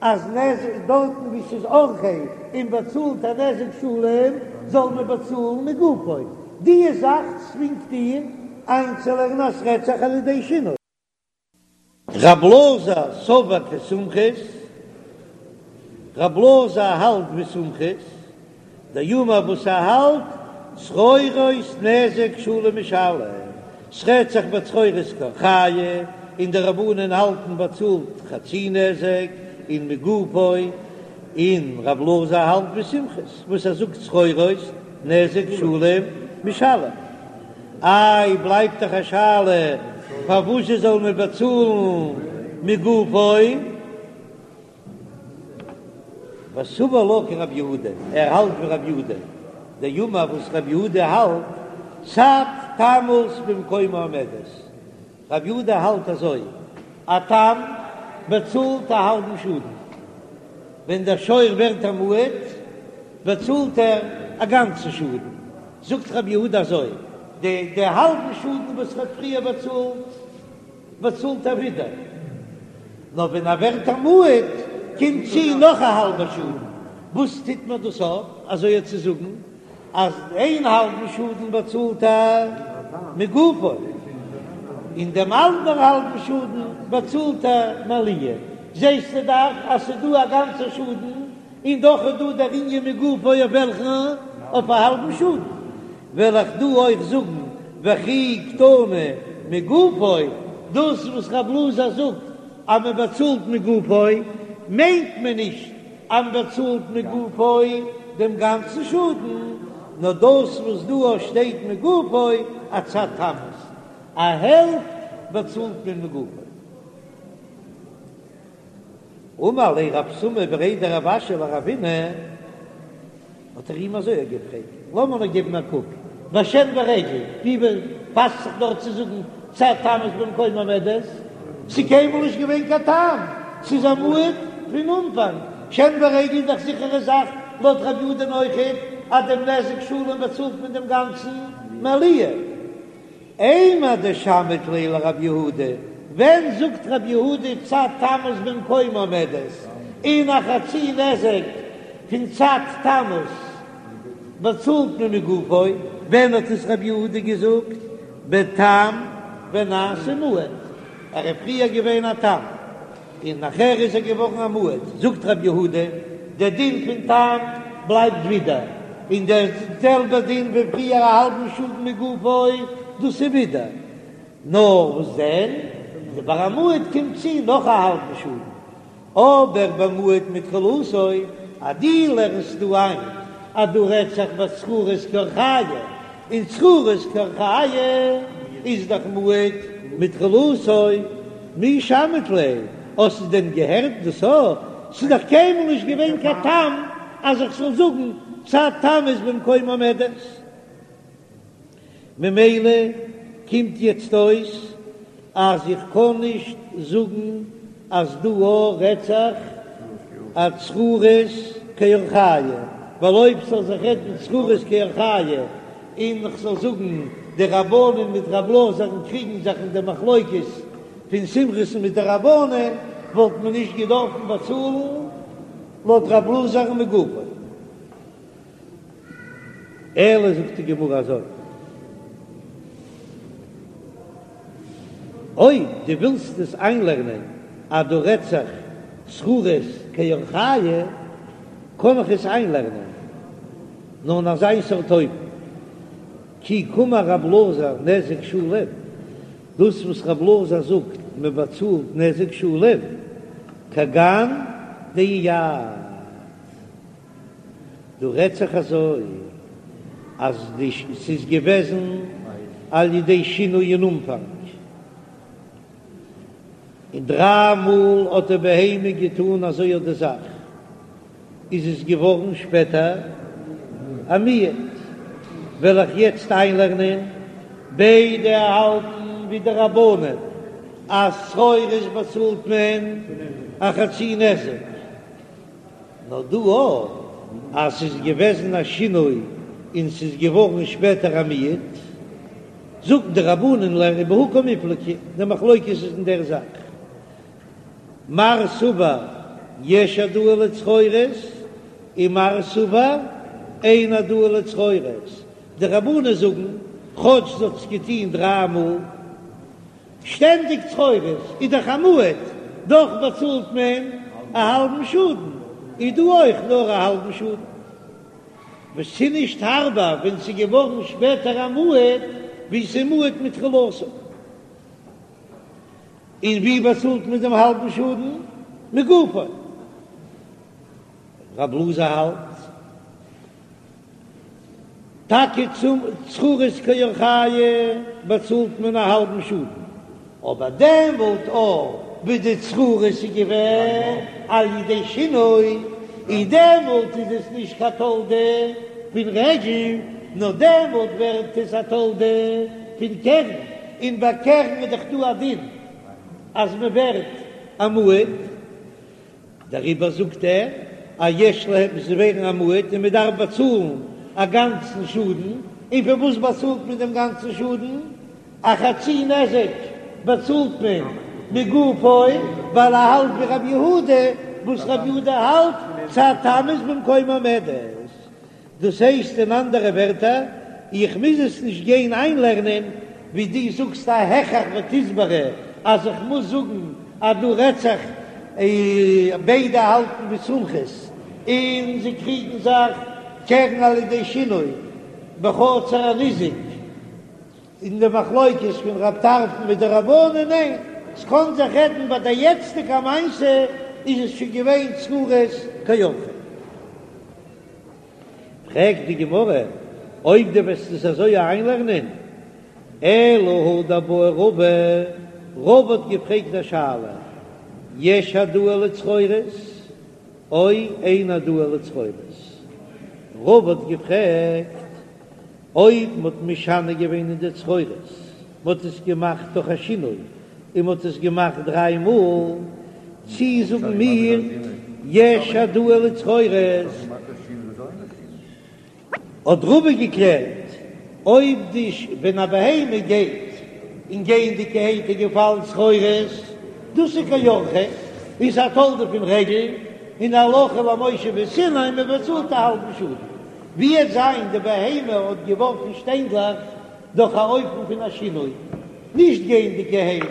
אז נזק דארטן ווי ס'איז אורחיה און באצאלט א נזק שלם זאל מען באצאלן מגופו, די זאך צווינגט דיר איינצולערנען אז ס'רעדט זיך על ידי שינוי. רב אלעזר סבר כסומכוס, רב אלעזר האלט ווי סומכוס, דאמר וואס ער האלט צרורות נזק שלם משלם, ס'רעדט זיך ביי צרורות כאורחיה, און די רבנן האלטן באצאלט חצי נזק און מגופו. און רב אלעזר האלט ווי סומכוס וואס ער זאגט צרורות נזק שלם משלם. איי בלייבט דאך א שאלה פארוואס זאל מען באצאלן מגופו? וסבר לה כרב יהודה, ער האלט ווי רב יהודה, דאמר וואס רב יהודה האלט, צד תמות במקומה עומדת, רב יהודה האלט אזוי, א תם באצאלט א האלבן שאדן, ווען דער שור ווערט א מועד באצאלט ער א גאנצן שאדן, זאגט רב יהודה אזוי, די די האלבן שאדן וואס ער האט פריער באצאלט, באצאלט ער ווידער, נאר ווען ער ווערט א מועד קומט צו נאך א האלבע שאדן, וואס טוט מען דאס אויף אזוי צו זאגן אז איין האלבן שאדן באצאלט ער מגופו, און דעם אנדער האלבן שאדן באצאלט ער מעליה, זעסטו דאך אז ס'איז דא א גאנצע שאדן און דאך איז דא דער ענין מגופו אויף וועלכן? אויף א האלבן שאדן. וועל איך דא אויך זאגן וכי קתני מגופו, דאס וואס רב אלעזר זאגט אז מען באצאלט מגופו, מיינט מען נישט אז מען באצאלט מגופו דעם גאנצן שאדן, נאר דאס וואס דא שטייט מגופו אצד תמות, א העלפט באצאלט מען מגופו. אמר ליה רב סמא בריה דרב אשי לרבינא, האט ער אים אזוי געפרעגט, לאמיר נאר געבן א קוק, ביי שן ורגל, ווי פאסט זיך דארט צו זאגן צד תמות במקומה עומדת? ס'איז קיינמאל נישט געווען קיין תם, ס'איז א מועד פון אנפאנג, שן ורגל איז דאך זיכערע זאך לויט רב יהודה'ן אויכעט אז דעם נזק שלם באצאלט מען דעם גאנצן מעליה. אימר דשמעת ליה לרב יהודה, ווען זאגט רב יהודה צד תמות במקומה עומדת, און א חצי נזק פון צד תמות באצאלט מען מגופו, ווען האט עס רב יהודה געזאגט? בתם ונעשה מועד, ער איז פריער געווען א תם. און נאכער איז ער געווארן א מועד, זאגט רבי יהודה, דער דין פון תם בלייבט ווידער, און דער זעלבער דין ווי פריער א האלבן שאדן מגופו, דאס איז ווידער, נאר וואס דען, ביי א מועד קומט צו נאך א האלבן שאדן, אבער במועד מתחילתו, אז דו לערנסט דא איין אז דא רעדט זיך ביי צרורות כי אורחייהו, און צרורות כי אורחייהו איז דאך מועד מתחילתו, מי שמעת ליה, האסטו דען געהערט דאס א? ס'איז דאך קיינמאל נישט געווען קיין תם אז איך זאל זאגן צד תמות במקומה עומדת. ממילא קומט יעצט אויס אז איך קען נישט זאגן אז דא א רעדט זיך א צרורות כי אורחייהו, ווייל אויב ס'זאל זיך רעדן צרורות כי אורחייהו און כ'זאל זאגן די רבנן מיט רב אלעזר'ן קריגן זיך אין די מחלוקת פון סומכוס'ן מיט די רבנן, וואלט מען נישט געדארפן באצאלן לויט רב אלעזר'ן מגופו. אלא זאגט די גמרא אזוי, אויב דו ווילסט עס איינלערנען אז דא רעדט זיך צרורות כי אורחייהו, קען איך עס איינלערנען נאר אין אזיין סארט אופן, כי קאמר רב אלעזר נזק שלם, דאס וואס רב אלעזר זאגט מען באצאלט נזק שלם, כגון דאייעד. דא רעדט זיך אזוי אז די ס'איז געוועזן על ידי שינוי אין אנפאנג, און דריי מאל האט די בהמה געטאן אזוי אט די זאך, איז עס געווארן שפעטער א מועד, וועל איך יעצט איינלערנען ביידע האלטן ווי די רבנן אז צרורות באצאלט מען א חצי נזק. נאר דא אויך אז ס'איז געוועזן א שינוי און ס'איז געווארן שפעטער א מועד, זאגן די רבנן לערנען בהא קמיפלגי, די מחלוקת איז אין דער זאך, מר סבר יש העדאה לצרורות און מר סבר אין העדאה לצרורות, די רבנן זאגן כאטש זי האט עס געטון דריי מאל, שטענדיג צרורות איז דאך א מועד, דאך באצאלט מען א האלבן שאדן, איז דא אויך נאר א האלבן שאדן. וואס ס'איז נישט הארבער ווען ס'איז געווארן שפעטער א מועד, ווי ס'איז מועד מתחילתו. און ווי באצאלט מען דעם האלבן שאדן? מגופו. רב אלעזר האלט טאקע צום צרורות כי אורחייהו באצאלט מען א האלבן שאדן, אבער דעמאלט אויך ווי די צרורות איז געווען על ידי שינוי, און דעמאלט איז עס נישט קיין תולדה פון רגל, נאר דעמאלט ווערט עס א תולדה פון קרן, און ביי קרן איז דאך דא א דין אז מען ווערט א מועד. דעריבער זאגט ער אז יש להם זיי ווערן א מועד און מען דארף באצאלן א גאנצן שאדן, און פון וואס באצאלט מען דעם גאנצן שאדן? א חצי נזק באצאלט מען מגופו, ווייל ער האלט ווי רבי יהודה, וואס רבי יהודה האלט צד תם איז במקומה עומדת. דאס הייסט אין אנדערע ווערטער, איך מוז עס נישט גיין איינלערנען ווי דו זאגסט א הכרח ותסברא אז איך מוז זאגן אז דא רעדט זיך ביידע האלטן ווי סומכוס און זיי קריגן זיך קרן על ידי שינוי בחצר הניזק אין די מחלוקת פון רב טרפון מיט די רבנן, ניין, ס'קען זיך רעדן ביי די יעצטיגע מעשה איז עס שוין געווען צרורות כי אורחיה. פרעגט די גמרא, אויב דו וועסט עס אזוי איינלערנען, אלא הא דבעי רבא, רבא האט געפרעגט א שאלה, יש העדאה לצרורות או אין העדאה לצרורות? רבא האט געפרעגט, אויב מ'האט משנה געווען אין די צרורות, מ'האט עס געמאכט דורך א שינוי, און מ'האט עס געמאכט דריי מאל, צי זאגן מיר יש העדאה לצרורות? האט רבא געקלערט, אויב די ווען א בהמה גייט און גייענדיגערהייט איז געפאלן צרורות, דאס איז כי אורחיה, איז א תולדה פון רגל, און הלכה למשה מסיני, מ'באצאלט א האלבן שאדן. ווי וועט זיין די בהמה האט געווארפן שטיינדלעך דורך א אופן פון א שינוי, נישט גייענדיגערהייט,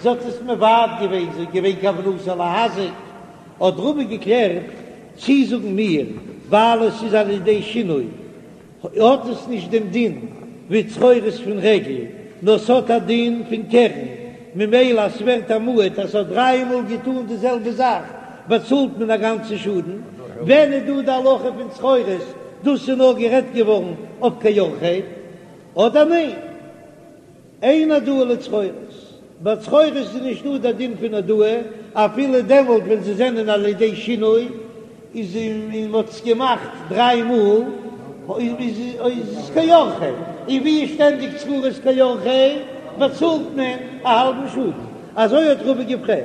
זי האט עס מבעט געווען, ס'איז געווען כוונתה להזיק, האט רבא געקלערט צי זאגן מיר ווייל עס איז על ידי שינוי האט עס נישט דעם דין ווי צרורות פון רגל, נאר ס'האט א דין פון קרן, ממילא אז ס'ווערט א מועד אז ס'האט דריי מאל געטאן די זעלבע זאך באצאלט מען א גאנצן שאדן, ווען איז דא די הלכה פון צרורות? דאס איז נאר גערעדט געווארן אויף כי אורחיה, אדער ניין? אין העדאה לצרורות, ביי צרורות איז נישט דא די דין פון העדאה, אפילו דעמאלט ווען זיי זענען על ידי שינוי, איז און מ'האט עס געמאכט דריי מאל, איז עס כי אורחיה, און ווי איז שטענדיג צרורות כי אורחיה, באצאלט מען א האלבן שאדן, אזוי האט רבא געפרעגט.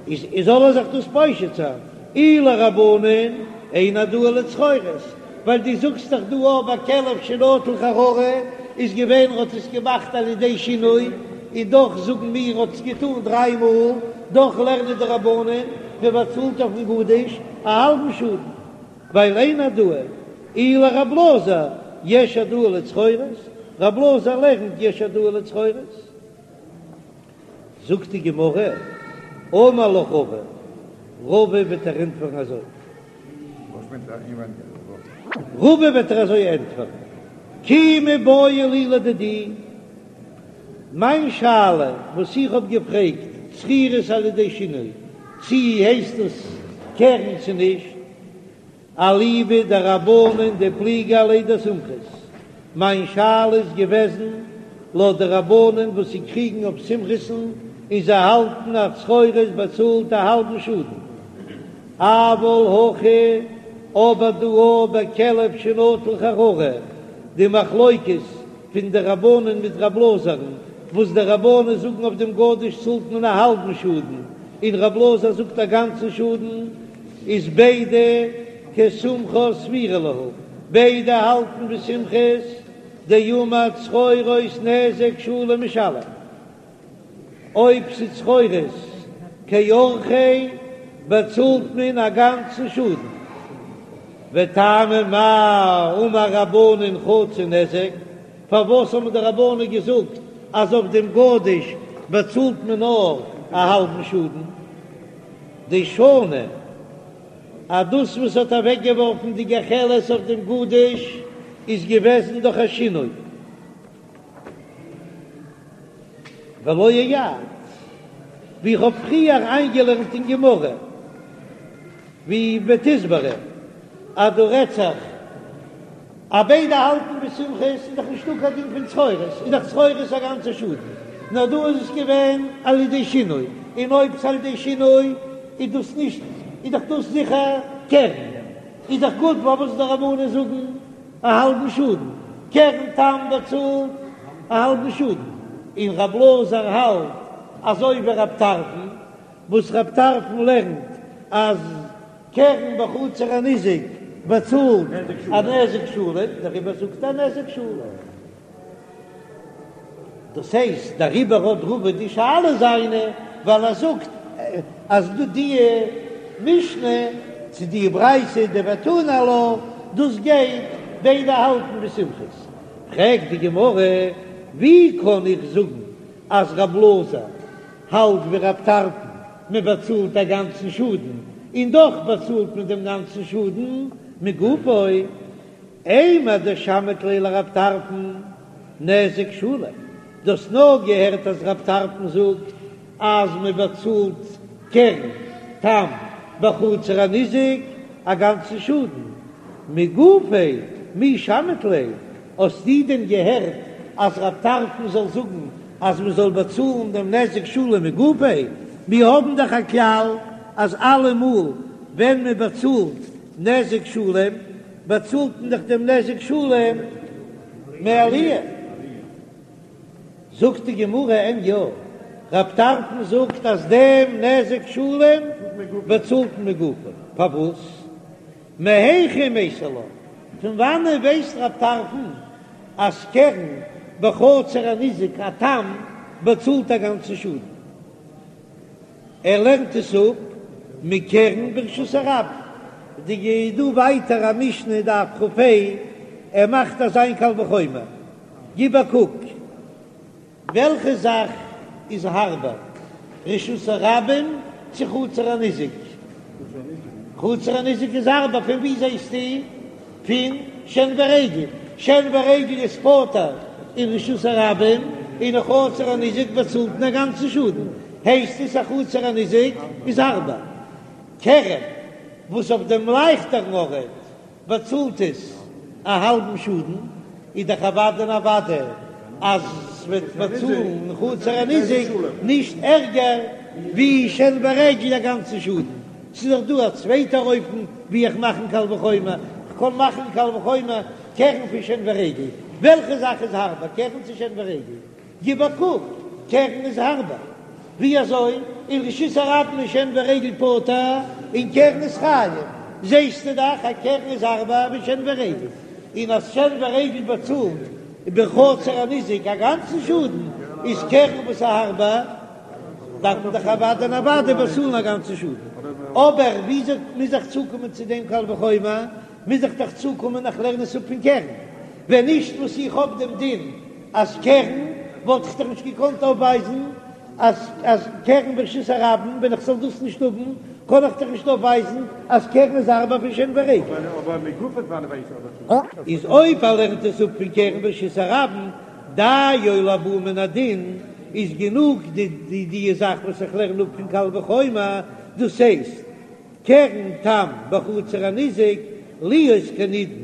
איז זאל ער זיך דאס פושט זיין, אי לרבנן אין העדאה לצרורות, ווייל דו זאגסט דאך דא אויב א כלב שנטל חררה איז געווען ער האט עס געמאכט על ידי שינוי, און דאך זאגן מיר האט עס געטאן דריי מאל, דאך לערנען די רבנן מען באצאלט אויפן גדיש א האלבן שאדן, ווייל אין העדאה, אי לרב אלעזר יש העדאה לצרורות, רב אלעזר לערנט יש העדאה לצרורות. זאגט די גמרא, אמר לך רבא, רבא וועט דיר ענטפערן אזוי. רבא וועט דיר אזוי ענטפערן, כי מיבעיא לי לדידי, מיין שאלה וואס איך האב געפרעגט, צרורות על ידי שינוי, צי הייסט עס קרן צו נישט, אליבא דרבנן דפליגי עליה דסומכוס, מיין שאלה איז געוועזן לויט די רבנן וואס זיי קריגן אויף סומכוס'ן און זיי האלטן אז צרורות באצאלט א האלבן שאדן, אבל הכא אבער דא בכלב שנטל חררה, די מחלוקת פון די רבנן מיט רב אלעזר'ן, וואס די רבנן זאגן אויף דעם גדיש צאלט מען א האלבן שאדן, און רב אלעזר זאגט א גאנצן שאדן, איז ביידע כסומכוס סבירא להו, ביידע האלטן ווי סומכוס דאמר צרורות נזק שלם משלם. אויב ס'איז צרורות כי אורחיה באצאלט מען א גאנצן שאדן. וטעמא מאי אמור רבנן חצי נזק, פארוואס האבן די רבנן געזאגט אז אויף דעם גדיש באצאלט מען נאר א האלבן שאדן? דשני אז דאס וואס האט אוועקגעווארפן די גחלת אויף דעם גדיש איז געוועזן דורך א שינוי. ולא אייעד, ווי איך האב פריער איינגעלערנט אין גמרא. ווי בתסברא אז דא רעדט זיך אז ביידע האלטן ווי סומכוס איז דאך נישטא קיין דין פון צרורות, איז דאך צרורות א גאנצע שאדן, נאר דא איז עס געווען על ידי שינוי, און אויב ס'איז על ידי שינוי איז דאס נישט, איז דאך דאס זיכער קרן, איז דאך גוט פארוואס די רבנן זאגן א האלבן שאדן, קרן תם באצאלט א האלבן שאדן, און רב אלעזר האלט אזוי ווי רב טרפון, וואס רב טרפון לערנט אז קרן בחצר הניזק באצאלט א נזק שלם, דעריבער זאגט ער נזק שלם. דאס הייסט דעריבער האט רבא די שאלה זיינע, ווייל ער זאגט אז דא די משנה צו די ברייתא דותני עלה, דאס גייט ביידע האלטן ווי סומכוס. פרעגט די גמרא, ווי קען איך זאגן אז רב אלעזר האלט ווי רב טרפון, מען באצאלט א גאנצן שאדן, און דאך באצאלט מען דעם גאנצן שאדן מגופו, אימר דשמעת ליה לרב טרפון נזק שלם, דו האסט נאר געהערט אז רב טרפון זאגט אז מען באצאלט קרן תם בחצר הניזק א גאנצן שאדן, מגופיה מי שמעת ליה, האסטו דען געהערט אז רב טרפון זאל זאגן אז מען זאל באצאלן דעם נזק שלם מגופיה? מיר האבן דאך א כלל אז אלעמאל ווען מען באצאלט נזק שלם באצאלט מען דאך דעם נזק שלם מעליה. זאגט די גמרא אין יא, רב טרפון זאגט אז דעם נזק שלם באצאלט מען מגופו, פארוואס? מהיכא מייתי לה, פון וואנען ווייסט רב טרפון אז קרן בחצר הניזק א תם באצאלט א גאנצן שאדן? ער לערנט עס אפ מקרן ברשות הרבים. די דא ווייטער א משנה דף כ"ה, ער מאכט אזא קל וחומר, גיב א קוק. וועלכע זאך איז הארבער, רשות הרבים צו חצר הניזק? חצר הניזק איז הארבער, פון ווי זעסטו? פון שן ורגל, שן ורגל איז פטור אין רשות הרבים, און אין חצר הניזק באצאלט מען א גאנצן שאדן, הייסט עס אז חצר הניזק איז הארבער. קרן וואס אויף דעם לייכטערן ארט באצאלט עס א האלבן שאדן, איז דאך אוודאי און אוודאי אז ס'וועט באצאלן חצר הניזק נישט ערגער ווי שן ורגל א גאנצן שאדן. ס'איז דאך דא א צווייטער אופן ווי איך מאכן קל וחומר, כ'קען מאכן קל וחומר קרן פון שן ורגל, וועלכע זאך איז הארבער קרן צו שן ורגל? גיב א קוק, קרן איז הארבער. ווי אזוי? אין רשות הרבים איז שן ורגל פטור און קרן איז חייב. זעסטו דאך אז קרן איז הארבער ווי שן ורגל. און אז שן ורגל באצאלט בחצר הניזק א גאנצן שאדן, איז קרן וואס איז הארבער, דארף מען דאך אוודאי און אוודאי באצאלן א גאנצן שאדן. אבער וויאזוי מוז איך צוקומען צו דעם קל וחומר? מוז איך דאך צוקומען איך לערן עס אפ פון קרן. ווען נישט וואס איך האב דעם דין אז קרן, וואלט איך דאך נישט געקאנט אויפווייזן אז אז קרן ברשות הרבים, ווען איך זאל דאס נישט האבן, קען איך דאך נישט אויפווייזן אז קרן איז הארבער פון שן ורגל. איז אויב ער לערנט עס אפ פון קרן ברשות הרבים, דיו לבא מן הדין, איז גענוג די די זאך וואס איך לערן אפ פון קל וחומר, דאס הייסט, קרן תם בחצר הניזק להיות כנידון,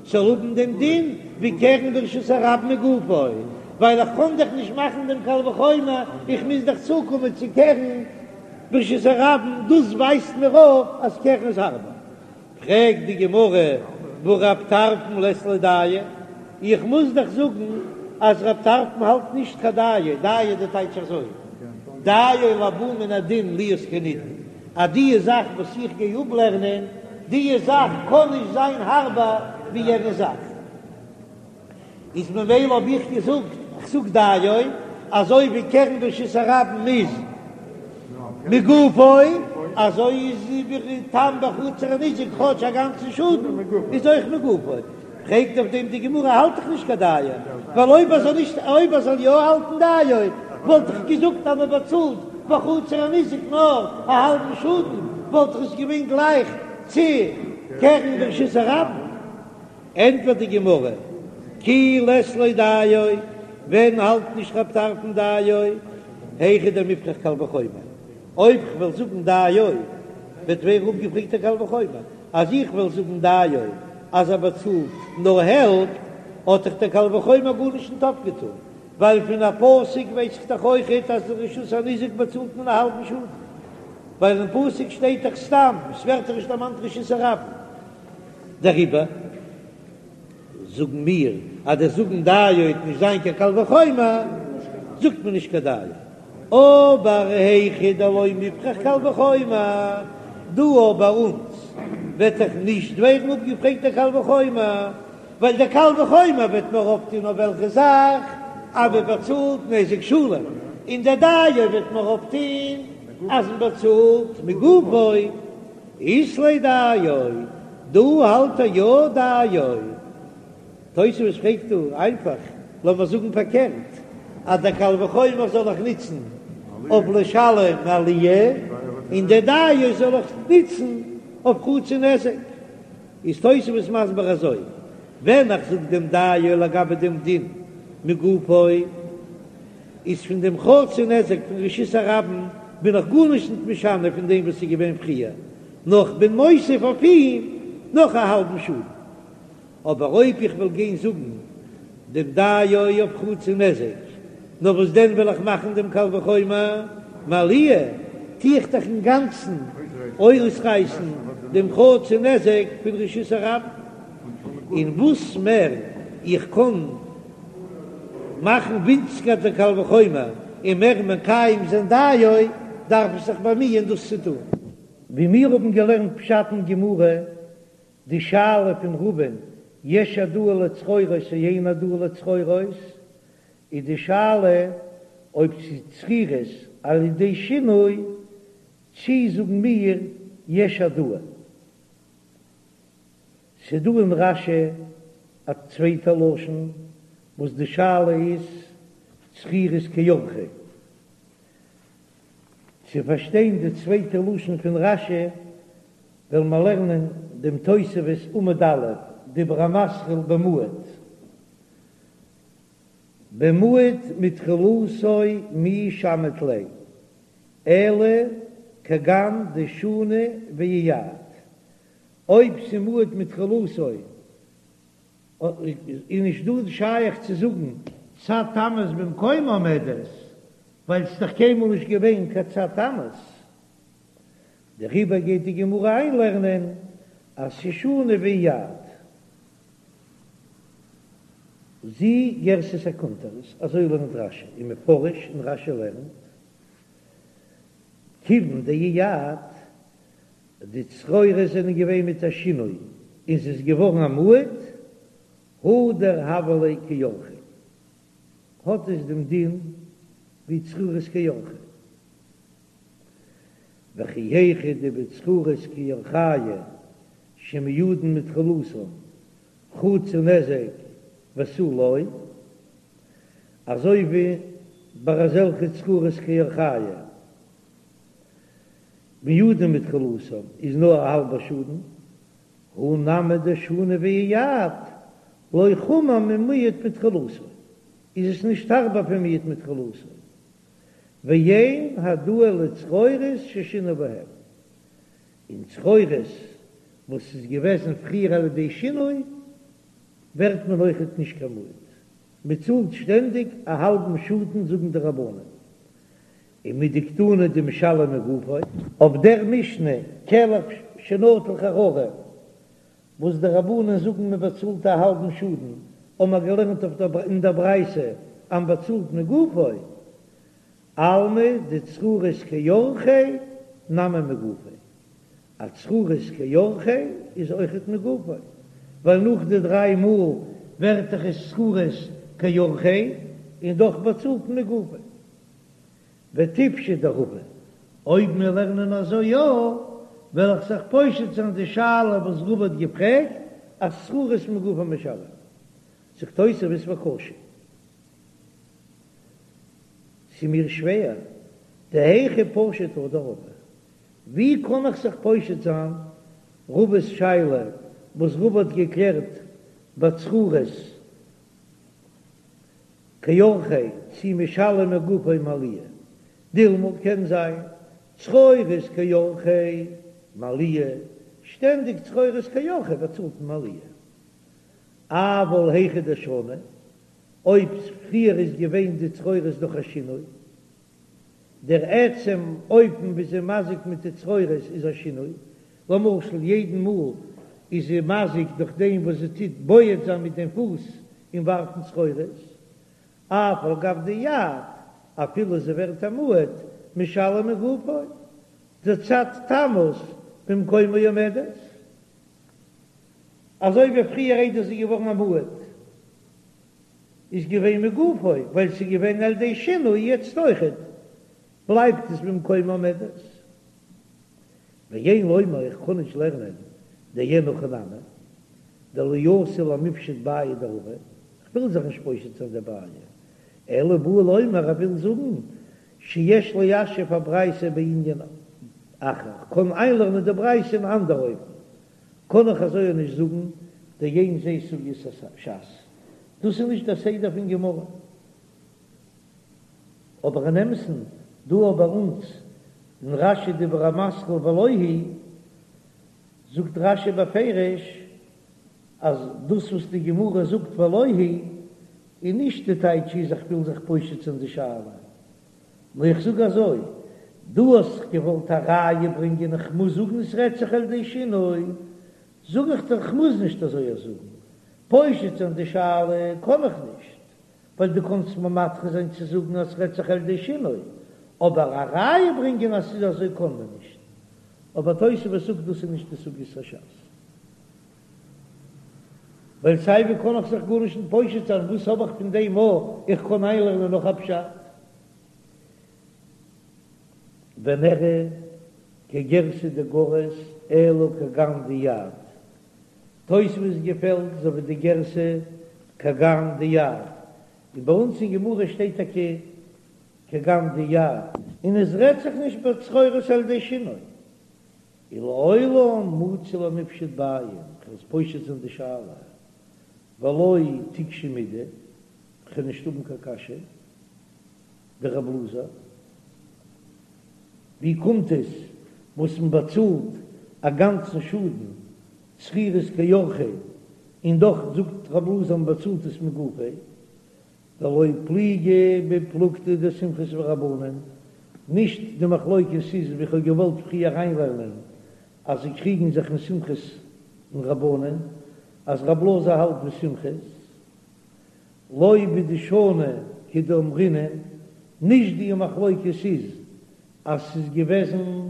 זאל האבן דעם דין ווי קרן ברשות הרבים מגופו, ווייל איך קען דאך נישט מאכן דעם קל וחומר, איך מוז דאך צוקומען צו קרן ברשות הרבים, דאס ווייזט מיר אויף אז קרן איז הארבער. פרעגט די גמרא, והא רב טרפון לית ליה דיו, איך מוז דאך זאגן אז רב טרפון האלט נישט קיין דיו, דיו די טייטש אזוי, דיו לבא מן הדין להיות כנידון, אז די זאך וואס איך גיי אפלערנען, די זאך קען נישט זיין הארבער ווי יענע זאך. איז ממילא האב איך געזאגט, איך זאג דיו, אזוי ווי קרן ברשות הרבים איז מגופו, אזוי איז תם בחצר הניזק כאטש א גאנצן שאדן איז אויך מגופו. פרעגט אויף דעם די גמרא, האלט דאך נישט קיין דיו, ווייל אויב ער זאל נישט, אויב ער זאל יא האלטן דיו, וואלט איך געזאגט אז מען באצאלט בחצר הניזק נאר א האלבן שאדן, וואלט איך עס געווען גלייך צו קרן ברשות הרבים. ענטפערט די גמרא, כי לית ליה דיו, ווען האלט נישט רב טרפון דיו, היכא דמיפרך קל וחומר, אויב כ'וועל זאגן דיו. וועט ווערן אפגעפרעגט דער קל וחומר, אז איך וועל זאגן דיו אז ער באצאלט נאר העלפט, האט דאך דער קל וחומר גארנישט ניט אויפגעטאן, ווייל פון א פסוק ווייס איך דאך אויכעט אז אין רשות הניזק באצאלט מען א האלבן שאדן, ווייל אין פסוק שטייט דאך סתם, ס'ווערט דאך נישט דערמאנט רשות הרבים. דעריבער זאגן מיר אז דער זאגן דיו וועט נישט זיין קיין קל וחומר, זאגט מען נישט קיין דיו. אבער היכא דלא מופרך קל וחומר, דא ביי אונז וועט דאך נישט ווערן אפגעפרעגט דער קל וחומר, ווייל דער קל וחומר וועט נאר אויפטון אויף וועלכע זאך אז מען באצאלט נזק שלם, און דער דיו וועט נאר אויפטון אז מען באצאלט מגופו. אית ליה דיו, דא האלט ער יא דיו. תוספות פרעגט דא איינפאך, לאמיר זאגן פארקערט, אז דער קל וחומר זאל איך נוצן אויף לשלם מעליה, און דער דיו זאל איך נוצן אויף חצי נזק. איז תוספות מסביר אזוי, ווען איך זאג דעם דיו לגבי דעם דין מגופו, איז פון דעם חצי נזק פון רשות הרבים בין איך גארנישט ניט משנה פון דעם וואס איז געווען פריער, נאר כ'בין מוסיף אויף אים נאך א האלבן שאדן. אבער אויב איך וועל גיין זאגן דעם דיו אויף חצי נזק, נאר וואס דען וועל איך מאכן דעם קל וחומר מעליה, טו איך דאך אינגאנצן אויסרייסן דעם חצי נזק פון רשות הרבים, און וואס מער איך קען מאכן ווינציגער דער קל וחומר און מער מקיים זיין דיו, דארף איך זיך באמיען דאס צו טון. ווי מיר האבן געלערנט פשט אין גמרא, די שאלה פון רבא'ן יש העדאה לצרורות או אין העדאה לצרורות, איז די שאלה אויב ס'איז צרורות על ידי שינוי, צי זאגן מיר יש העדאה. ס'דא אין רש"י א צווייטע לשון וואס די שאלה איז צרורות כי אורחיה. צו פארשטיין די צווייטע לשון פון רש"י וועלן מיר לערנען דעם תוספות עמוד א', דיבור המתחיל במועד. במועד מתחילתו מי שמעת ליה, אלא כגון דשני ואייעד. אויב ס'מועד מתחילתו איז נישט דא שייך צו זאגן צד תמות במקומה עומדת, ווייל ס'איז דאך קיינמאל נישט געווען קיין צד תמות. דעריבער גייט די גמרא איינלערנען אז ס'שני ואייעד. זו גירסת הקונטרס, אזוי לערנט רש"י, ומפרש, און רש"י לערנט, כיוון דאייעד, די צרורות זענען געווען מיט א שינוי און ס'איז געווארן א מועד, הדר הוה ליה כי אורחיה, האט עס דעם דין ווי צרורות כי אורחיה. וכי היכי דבצרורות כי אורחיה שמועדין מתחילתן חצי נזק ותו לא, אזוי ווי ביי אזעלכע צרורות כי אורחיה מועדין מתחילתן איז נאר א האלבע שאדן, הא נמי דשני ואייעד לא חמור ממועד מתחילתו, איז עס נישט הארבער פון מועד מתחילתו, ואין העדאה לצרורות ששינו בהם, און צרורות וואס איז געוועזן פריער על ידי שינוי ווערט מען אויכעט נישט קיין מועד, מען צאלט שטענדיג א האלבן שאדן זאגן די רבנן, ומדקתני דמשלם מגופו. אויף דער משנה כלב שנטל חררה וואס די רבנן זאגן מען באצאלט א האלבן שאדן, האבן מיר געלערנט אויף דער אין דער ברייתא אז מען באצאלט מגופו, אלמא דצרורות כי אורחיה נמי מגופו, א צרורות כי אורחיה איז אויכעט מגופו, ווייל נאך די דריי מאל ווערט דאך עס צרורות כי אורחיה און דאך באצאלט מען מגופו. ותיפשוט דרבא, אויב מיר לערנען אזוי יא, וועל איך זיך פושט זיין די שאלה וואס רבא האט געפרעגט, אז צרורות מגופו משלם. זאגט תוספות וקשה. ס'איז מיר שווער, דהיכי פשיט הא דרבא, ווי קען איך זיך פושט זיין רבא'ס שאלה וואס רבא האט געקלערט בצרורות כי אורחיה צי משלם מגופו מעליה, דילמא קען זיין צרורות כי אורחיה. מעליה, שטענדיג צרורות כי אורחיה באצאלט מען מעליה. אבל היכא דשני, אויב פריער איז געווען די צרורות דורך א שינוי, דער עצם אופן ווי זי מזיק מיט די צרורות איז א שינוי, למשל יעדן מאל איז זי מזיק דורך דעם וואס זי טוט בועט זיין מיט דעם פוס און ווארפן צרורות, אף על גב דאייעד, אפילו זי ווערט א מועד, משלם מגופו, דצד תמות במקומה עומדת, אזוי ווי פריער איידער זי איז געווארן א מועד איז געווען מגופו, ווייל ס'איז געווען על ידי שינוי, יעצט אויכעט בלייבט עס במקומה עומדת. ואין לומר איך קען נישט לערנען דאין הכי נמי, דלא אתי למיפשט בעיא דרבא, כ'וויל זיך נישט פושט זיין די בעיא, אלא בא לומר ער וויל זאגן שיש ליישב הברייתא בענין אחר, כ'קען איינלערנען די ברייתא אין אנדער אופן, קען איך אזוי נישט זאגן דאין זה סוגיית הש"ס, דאס איז נישט דער סדר פון גמרא. אבער אין אמת'ן דא ביי אונז אין רש"י דיבור המתחיל ולא היא זאגט רש"י בפירוש אז דאס וואס די גמרא זאגט ולא היא איז נישט די טייטש איז איך וויל זיך פושט זיין די שאלה, נאר איך זאג אזוי, דו האסט זיך געוואלט א ראיה ברענגען איך מוז זאגן עס רעדט זיך על ידי שינוי, זאג איך דיר כ'מוז נישט אזוי זאגן, פושט זיין די שאלה קען איך נישט, ווייל דו קאנסט מיר מדחה זיין צו זאגן אז ס'רעדט זיך על ידי שינוי, אבער א ראיה ברענגען אז ס'איז אזוי קען מען נישט. אבער תוספות זאגט דאס איז נישט די סוגיית הש"ס. ווייל סיי ווי קען איך זיך גארנישט נישט פושט זיין, וואס האב איך פון דעם א איך קען איינלערנען נאך א פשט? ונראה כגירסא דגריס אלא כגון דאייעד. תוספות געפעלט אזוי ווי די גירסא כגון דאייעד, און ביי אונז אין גמרא שטייט טאקע כגון דאייעד, און עס רעדט זיך נישט בצרורות על ידי שינוי, ולעולם מצי למיפשט בעיא, כ'וועל עס פושט זיין די שאלה, ולא תיקשי מידי, כ'וועל נישט האבן קיין קשיא, דרב אלעזר, ווי קומט עס וואס מען באצאלט א גאנצן שאדן צרורות כי אורחיה, און דאך זאגט רב אלעזר מען באצאלט עס מגופו, דלא פליגי בפלוגתא דסומכוס ורבנן, נישט די מחלוקת איז ווי כ'האב געוואלט פריער אריינלערנען אז זיי קריגן זיך אין סומכוס און רבנן, אז רב אלעזר האלט ווי סומכוס, לא בדשני כדאמרינן, נישט די מחלוקת איז אז ס'איז געוועזן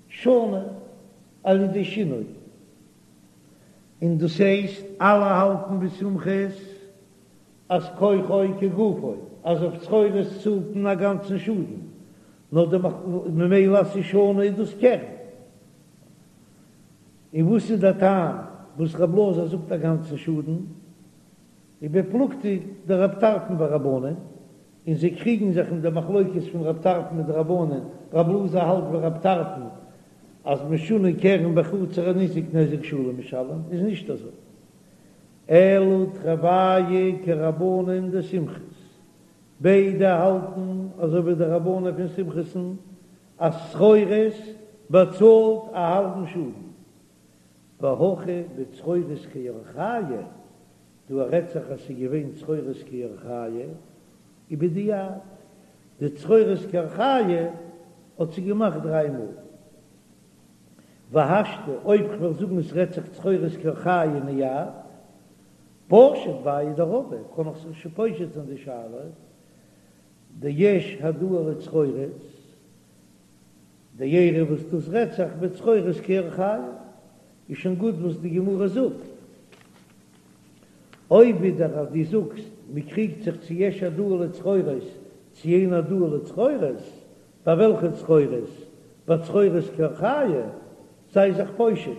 שנה על ידי שינוי, און דאס הייסט אלע האלטן ווי סומכוס אז כוחו כגופו, אז אויף צרורות צאלט מען א גאנצן שאדן, נאר די ממילא אז ס'איז שנה איז דאס קרן. און וואס איז דער טעם וואס רב אלעזר זאגט א גאנצן שאדן? ובפלוגתא דרב טרפון ורבנן, און זיי קריגן זיך אין די מחלוקת פון רב טרפון מיט די רבנן, רב אלעזר האלט ווי רב טרפון אז משונה קרן בחצר הניזק נזק שלם משלם, איז נישט אזוי, אלא תרוייהו כרבנן דסומכוס, ביידע האלטן אזוי ווי די רבנן פון סומכוס'ן אז צרורות באצאלט א האלבן שאדן, והכא בצרורות כי אורחייהו, דא רעדט זיך אז ס'איז געווען צרורות כי אורחייהו, ובדיעבד, די צרורות כי אורחייהו האט זי געמאכט דריי מאל. והשתא, אויב כ'וועל זאגן עס רעדט זיך צרורות כי אורחייהו נייעד, פשיט בעיא דרבא, קען איך זיך שוין פושט זיין די שאלה, דיש העדאה לצרורות, דאירע וואס דאס רעדט זיך בצרורות כי אורחייהו, איז שוין גוט וואס די גמרא זאגט. אויב ווידער אז דו זאגסט מ'קריגט זיך צו יש העדאה לצרורות צו אין העדאה לצרורות, ביי וועלכע צרורות? ביי צרורות כי אורחייהו, זיי זיך פושט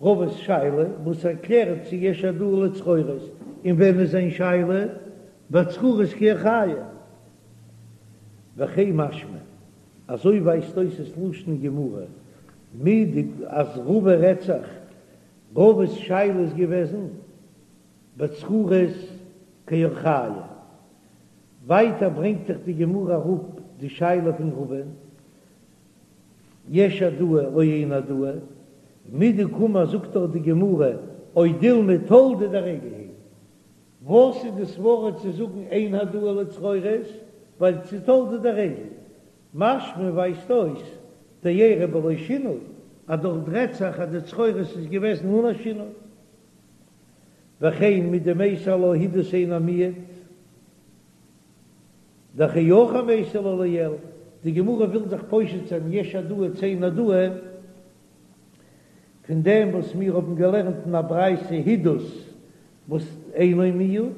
רבא'ס שאלה וואס ער קלערט צו יש העדאה לצרורות, און ווען איז זיין שאלה? ביי צרורות כי אורחייהו. וכן משמע, אזוי ווייזט אויס עס לשון גמרא, מידי אז רבא רעדט זיך, רבא'ס שאלה איז געוועזן בצרורות כי אורחייהו. ווייטער ברענגט זיך די גמרא אראפ די שאלה פון רבא'ן. יש העדאה או אין העדאה, מדקאמר זאגט דאך די גמרא או דילמא תולדה דרגל היא, וואס איז די סברה צו זאגן אין העדאה לצרורות, ווייל ס'איז תולדה דרגל, משמע ווייזט אויס דאירע בלא שינוי, אז דארט רעדט זיך אז די צרורות איז געוועזן אן א שינוי. וכן מדמייתי עלה הידוס אינו מועד, דכי אורחיה מייתי לה לעיל, די גמרא וויל זיך פושט זיין יש העדאה צו אין העדאה, פון דעם וואס מיר האבן געלערנט אין א ברייתא הידוס וואס אינו מועד,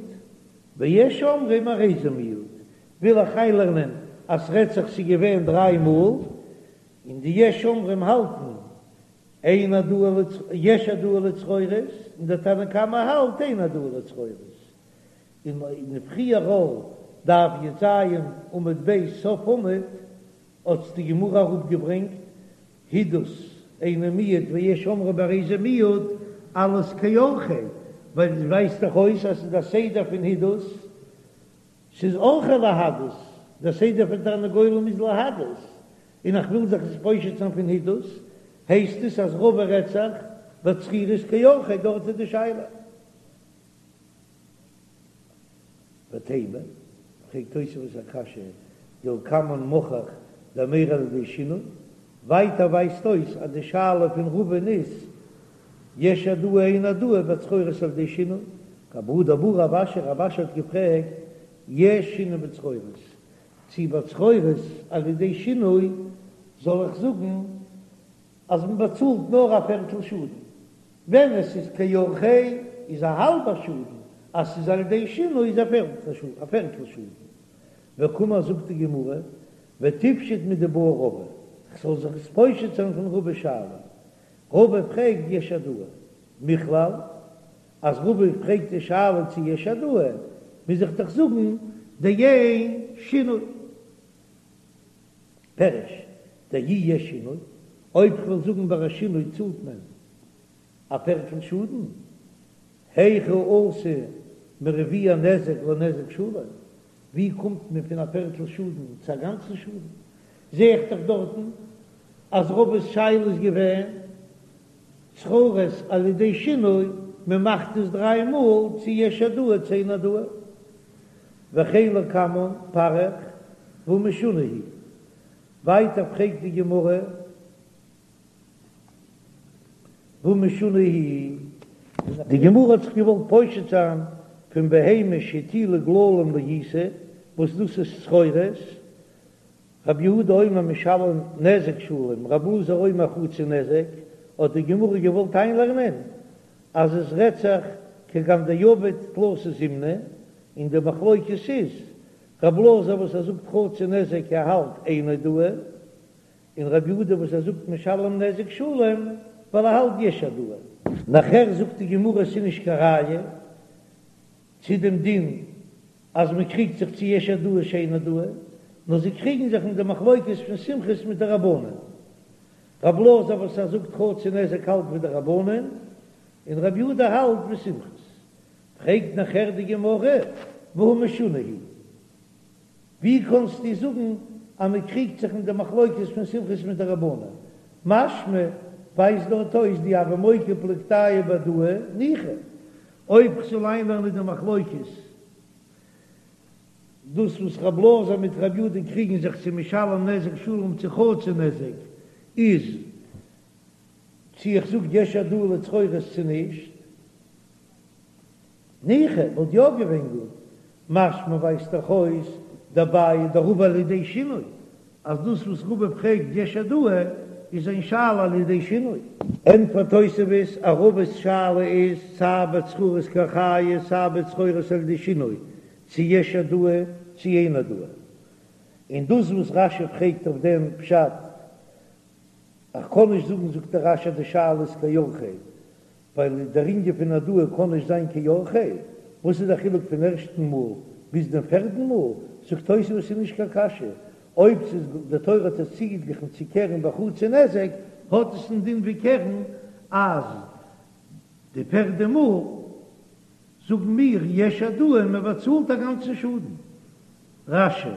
ויש אומרים הרי זה מועד, וויל איך איינלערנען אז ס'רעדט זיך ס'איז געווען דריי מאל, און די יש אומרים האלטן אין העדאה לצ יש העדאה לצרורות, און דער תנא קמא האלט אין העדאה לצרורות. און אין פריער דף י"ז עמוד ב' סוף עמוד האט די גמרא אראפגעברענגט הידוס אינו מועד ויש אומרים הרי זה מועד אלעס כאורחיה, ווייל עס ווייזט דאך אויס אז ס'איז א סדר פון הידוס, ס'איז אורחיה להדות, דער סדר פון תרנגולים איז להדות, און איך וויל זיך עס פושט זיין פון הידוס, הייסט עס אז רבא רעדט זיך בצרורות כאורחיה, דארט איז די שאלה. ותימה, פרעגט תוספות א קשיא, דלקמן מוכח דמירא על ידי שינוי, ווייטער ווייזט אויס אז די שאלה פון רבא'ן איז יש העדאה אין העדאה בצרורות על ידי שינוי, והא דבעי רב אשי, רב אשי האט געפרעגט יש שינוי בצרורות, צי בצרורות על ידי שינוי זאל איך זאגן אז מען באצאלט נאר א פערטל שאדן, ווען עס איז כאורחיה איז א האלבע שאדן, אז ס'איז על ידי שינוי איז א פערטל שאדן. וקאמר זאגט די גמרא, ותפשוט מדבעי רבא, כ'זאל זיך עס פושט זיין פון רבא'ס שאלה, רבא פרעגט יש העדאה, מכלל אז רבא פרעגט די שאלה צו יש העדאה, מוז איך דאך זאגן דאין שינוי. פירוש, דאי יש שינוי, אויב כ'וועל זאגן ביי א שינוי צאלט מען א פערטל שאדן, היכי אתו מרביע נזק לנזק שלם, ווי קומט מען פון א פערטל שאדן צו א גאנצן שאדן? זע איך דאך דארטן אז רבא'ס שאלה איז געווען צרורות על ידי שינוי, מען מאכט עס דריי מאל צו יש העדאה צו אין העדאה. וכן לקמן פריך והא משונה היא. ווייטער פרעגט די גמרא והא משונה היא. די גמרא האט זיך געוואלט פושט זיין פון בהמה שהטילה גללים לעיסה וואס דאס איז צרורות, רבי יהודה אומר משלם נזק שלם, רבי אלעזר אומר חצי נזק, האט די גמרא געוואלט איינלערנען אז עס רעדט זיך כגון דעבד תלתא זימני, און די מחלוקת איז רבי אלעזר וואס ער זאגט חצי נזק ער האלט אין העדאה, און רבי יהודה וואס ער זאגט משלם נזק שלם ווייל ער האלט יש העדאה. נאכער זאגט די גמרא ס'איז נישט קיין ראיה צו דעם דין אז מען קריגט זיך צו יש העדאה צו אין העדאה, נאר זיי קריגן זיך אין די מחלוקת פון סומכוס מיט די רבנן. רב אלעזר וואס ער זאגט חצי נזק האלט ווי די רבנן, און רבי יהודה האלט ווי סומכוס. פרעגט נאכער די גמרא, והא משונה היא ווי קאנסטו זאגן אז מען קריגט זיך אין די מחלוקת פון סומכוס מיט די רבנן? משמע ווייזט דארט אויס דאי הוה מוקי פלוגתייהו בהעדאה ניחא. אויב כ'זאל איינלערנען די מחלוקת, דאס וואס רב אלעזר מיט רב יהודה קריגן זיך צו משלם נזק שלם צו חצי נזק, איז צו איך זאג יש העדאה לצרורות צו נישט. ניחא, וואלט יא געווען גוט. משמע ווייזט דאך אויס דבעיא דרבא על ידי שינוי, אז דאס וואס רבא פרעגט יש העדאה איז זיין שאלה על ידי שינוי. ענטפערט תוספות אז רבא'ס שאלה איז סיי בצרורות כאורחיה סיי בצרורות על ידי שינוי, צו יש העדאה צו אין העדאה. און דאס וואס רש"י פרעגט אויף דעם פשט, איך קען נישט זאגן זאגט דער רש"י אז די שאלה איז כאורחיה, ווייל דער ענין פון העדאה קען נישט זיין כאורחיה, וואס איז דער חילוק פון ערשטן מאל ביז דעם פערדן מאל? זאגט תוספות ס'איז נישט קיין קשיא, אויב ס'איז די תורה האט עס צוגעגליכן צו קרן בחצי נזק, האט עס א דין ווי קרן, אז די פערדע מאל זאגן מיר יש העדאה און מען באצאלט א גאנצן שאדן. רש"י.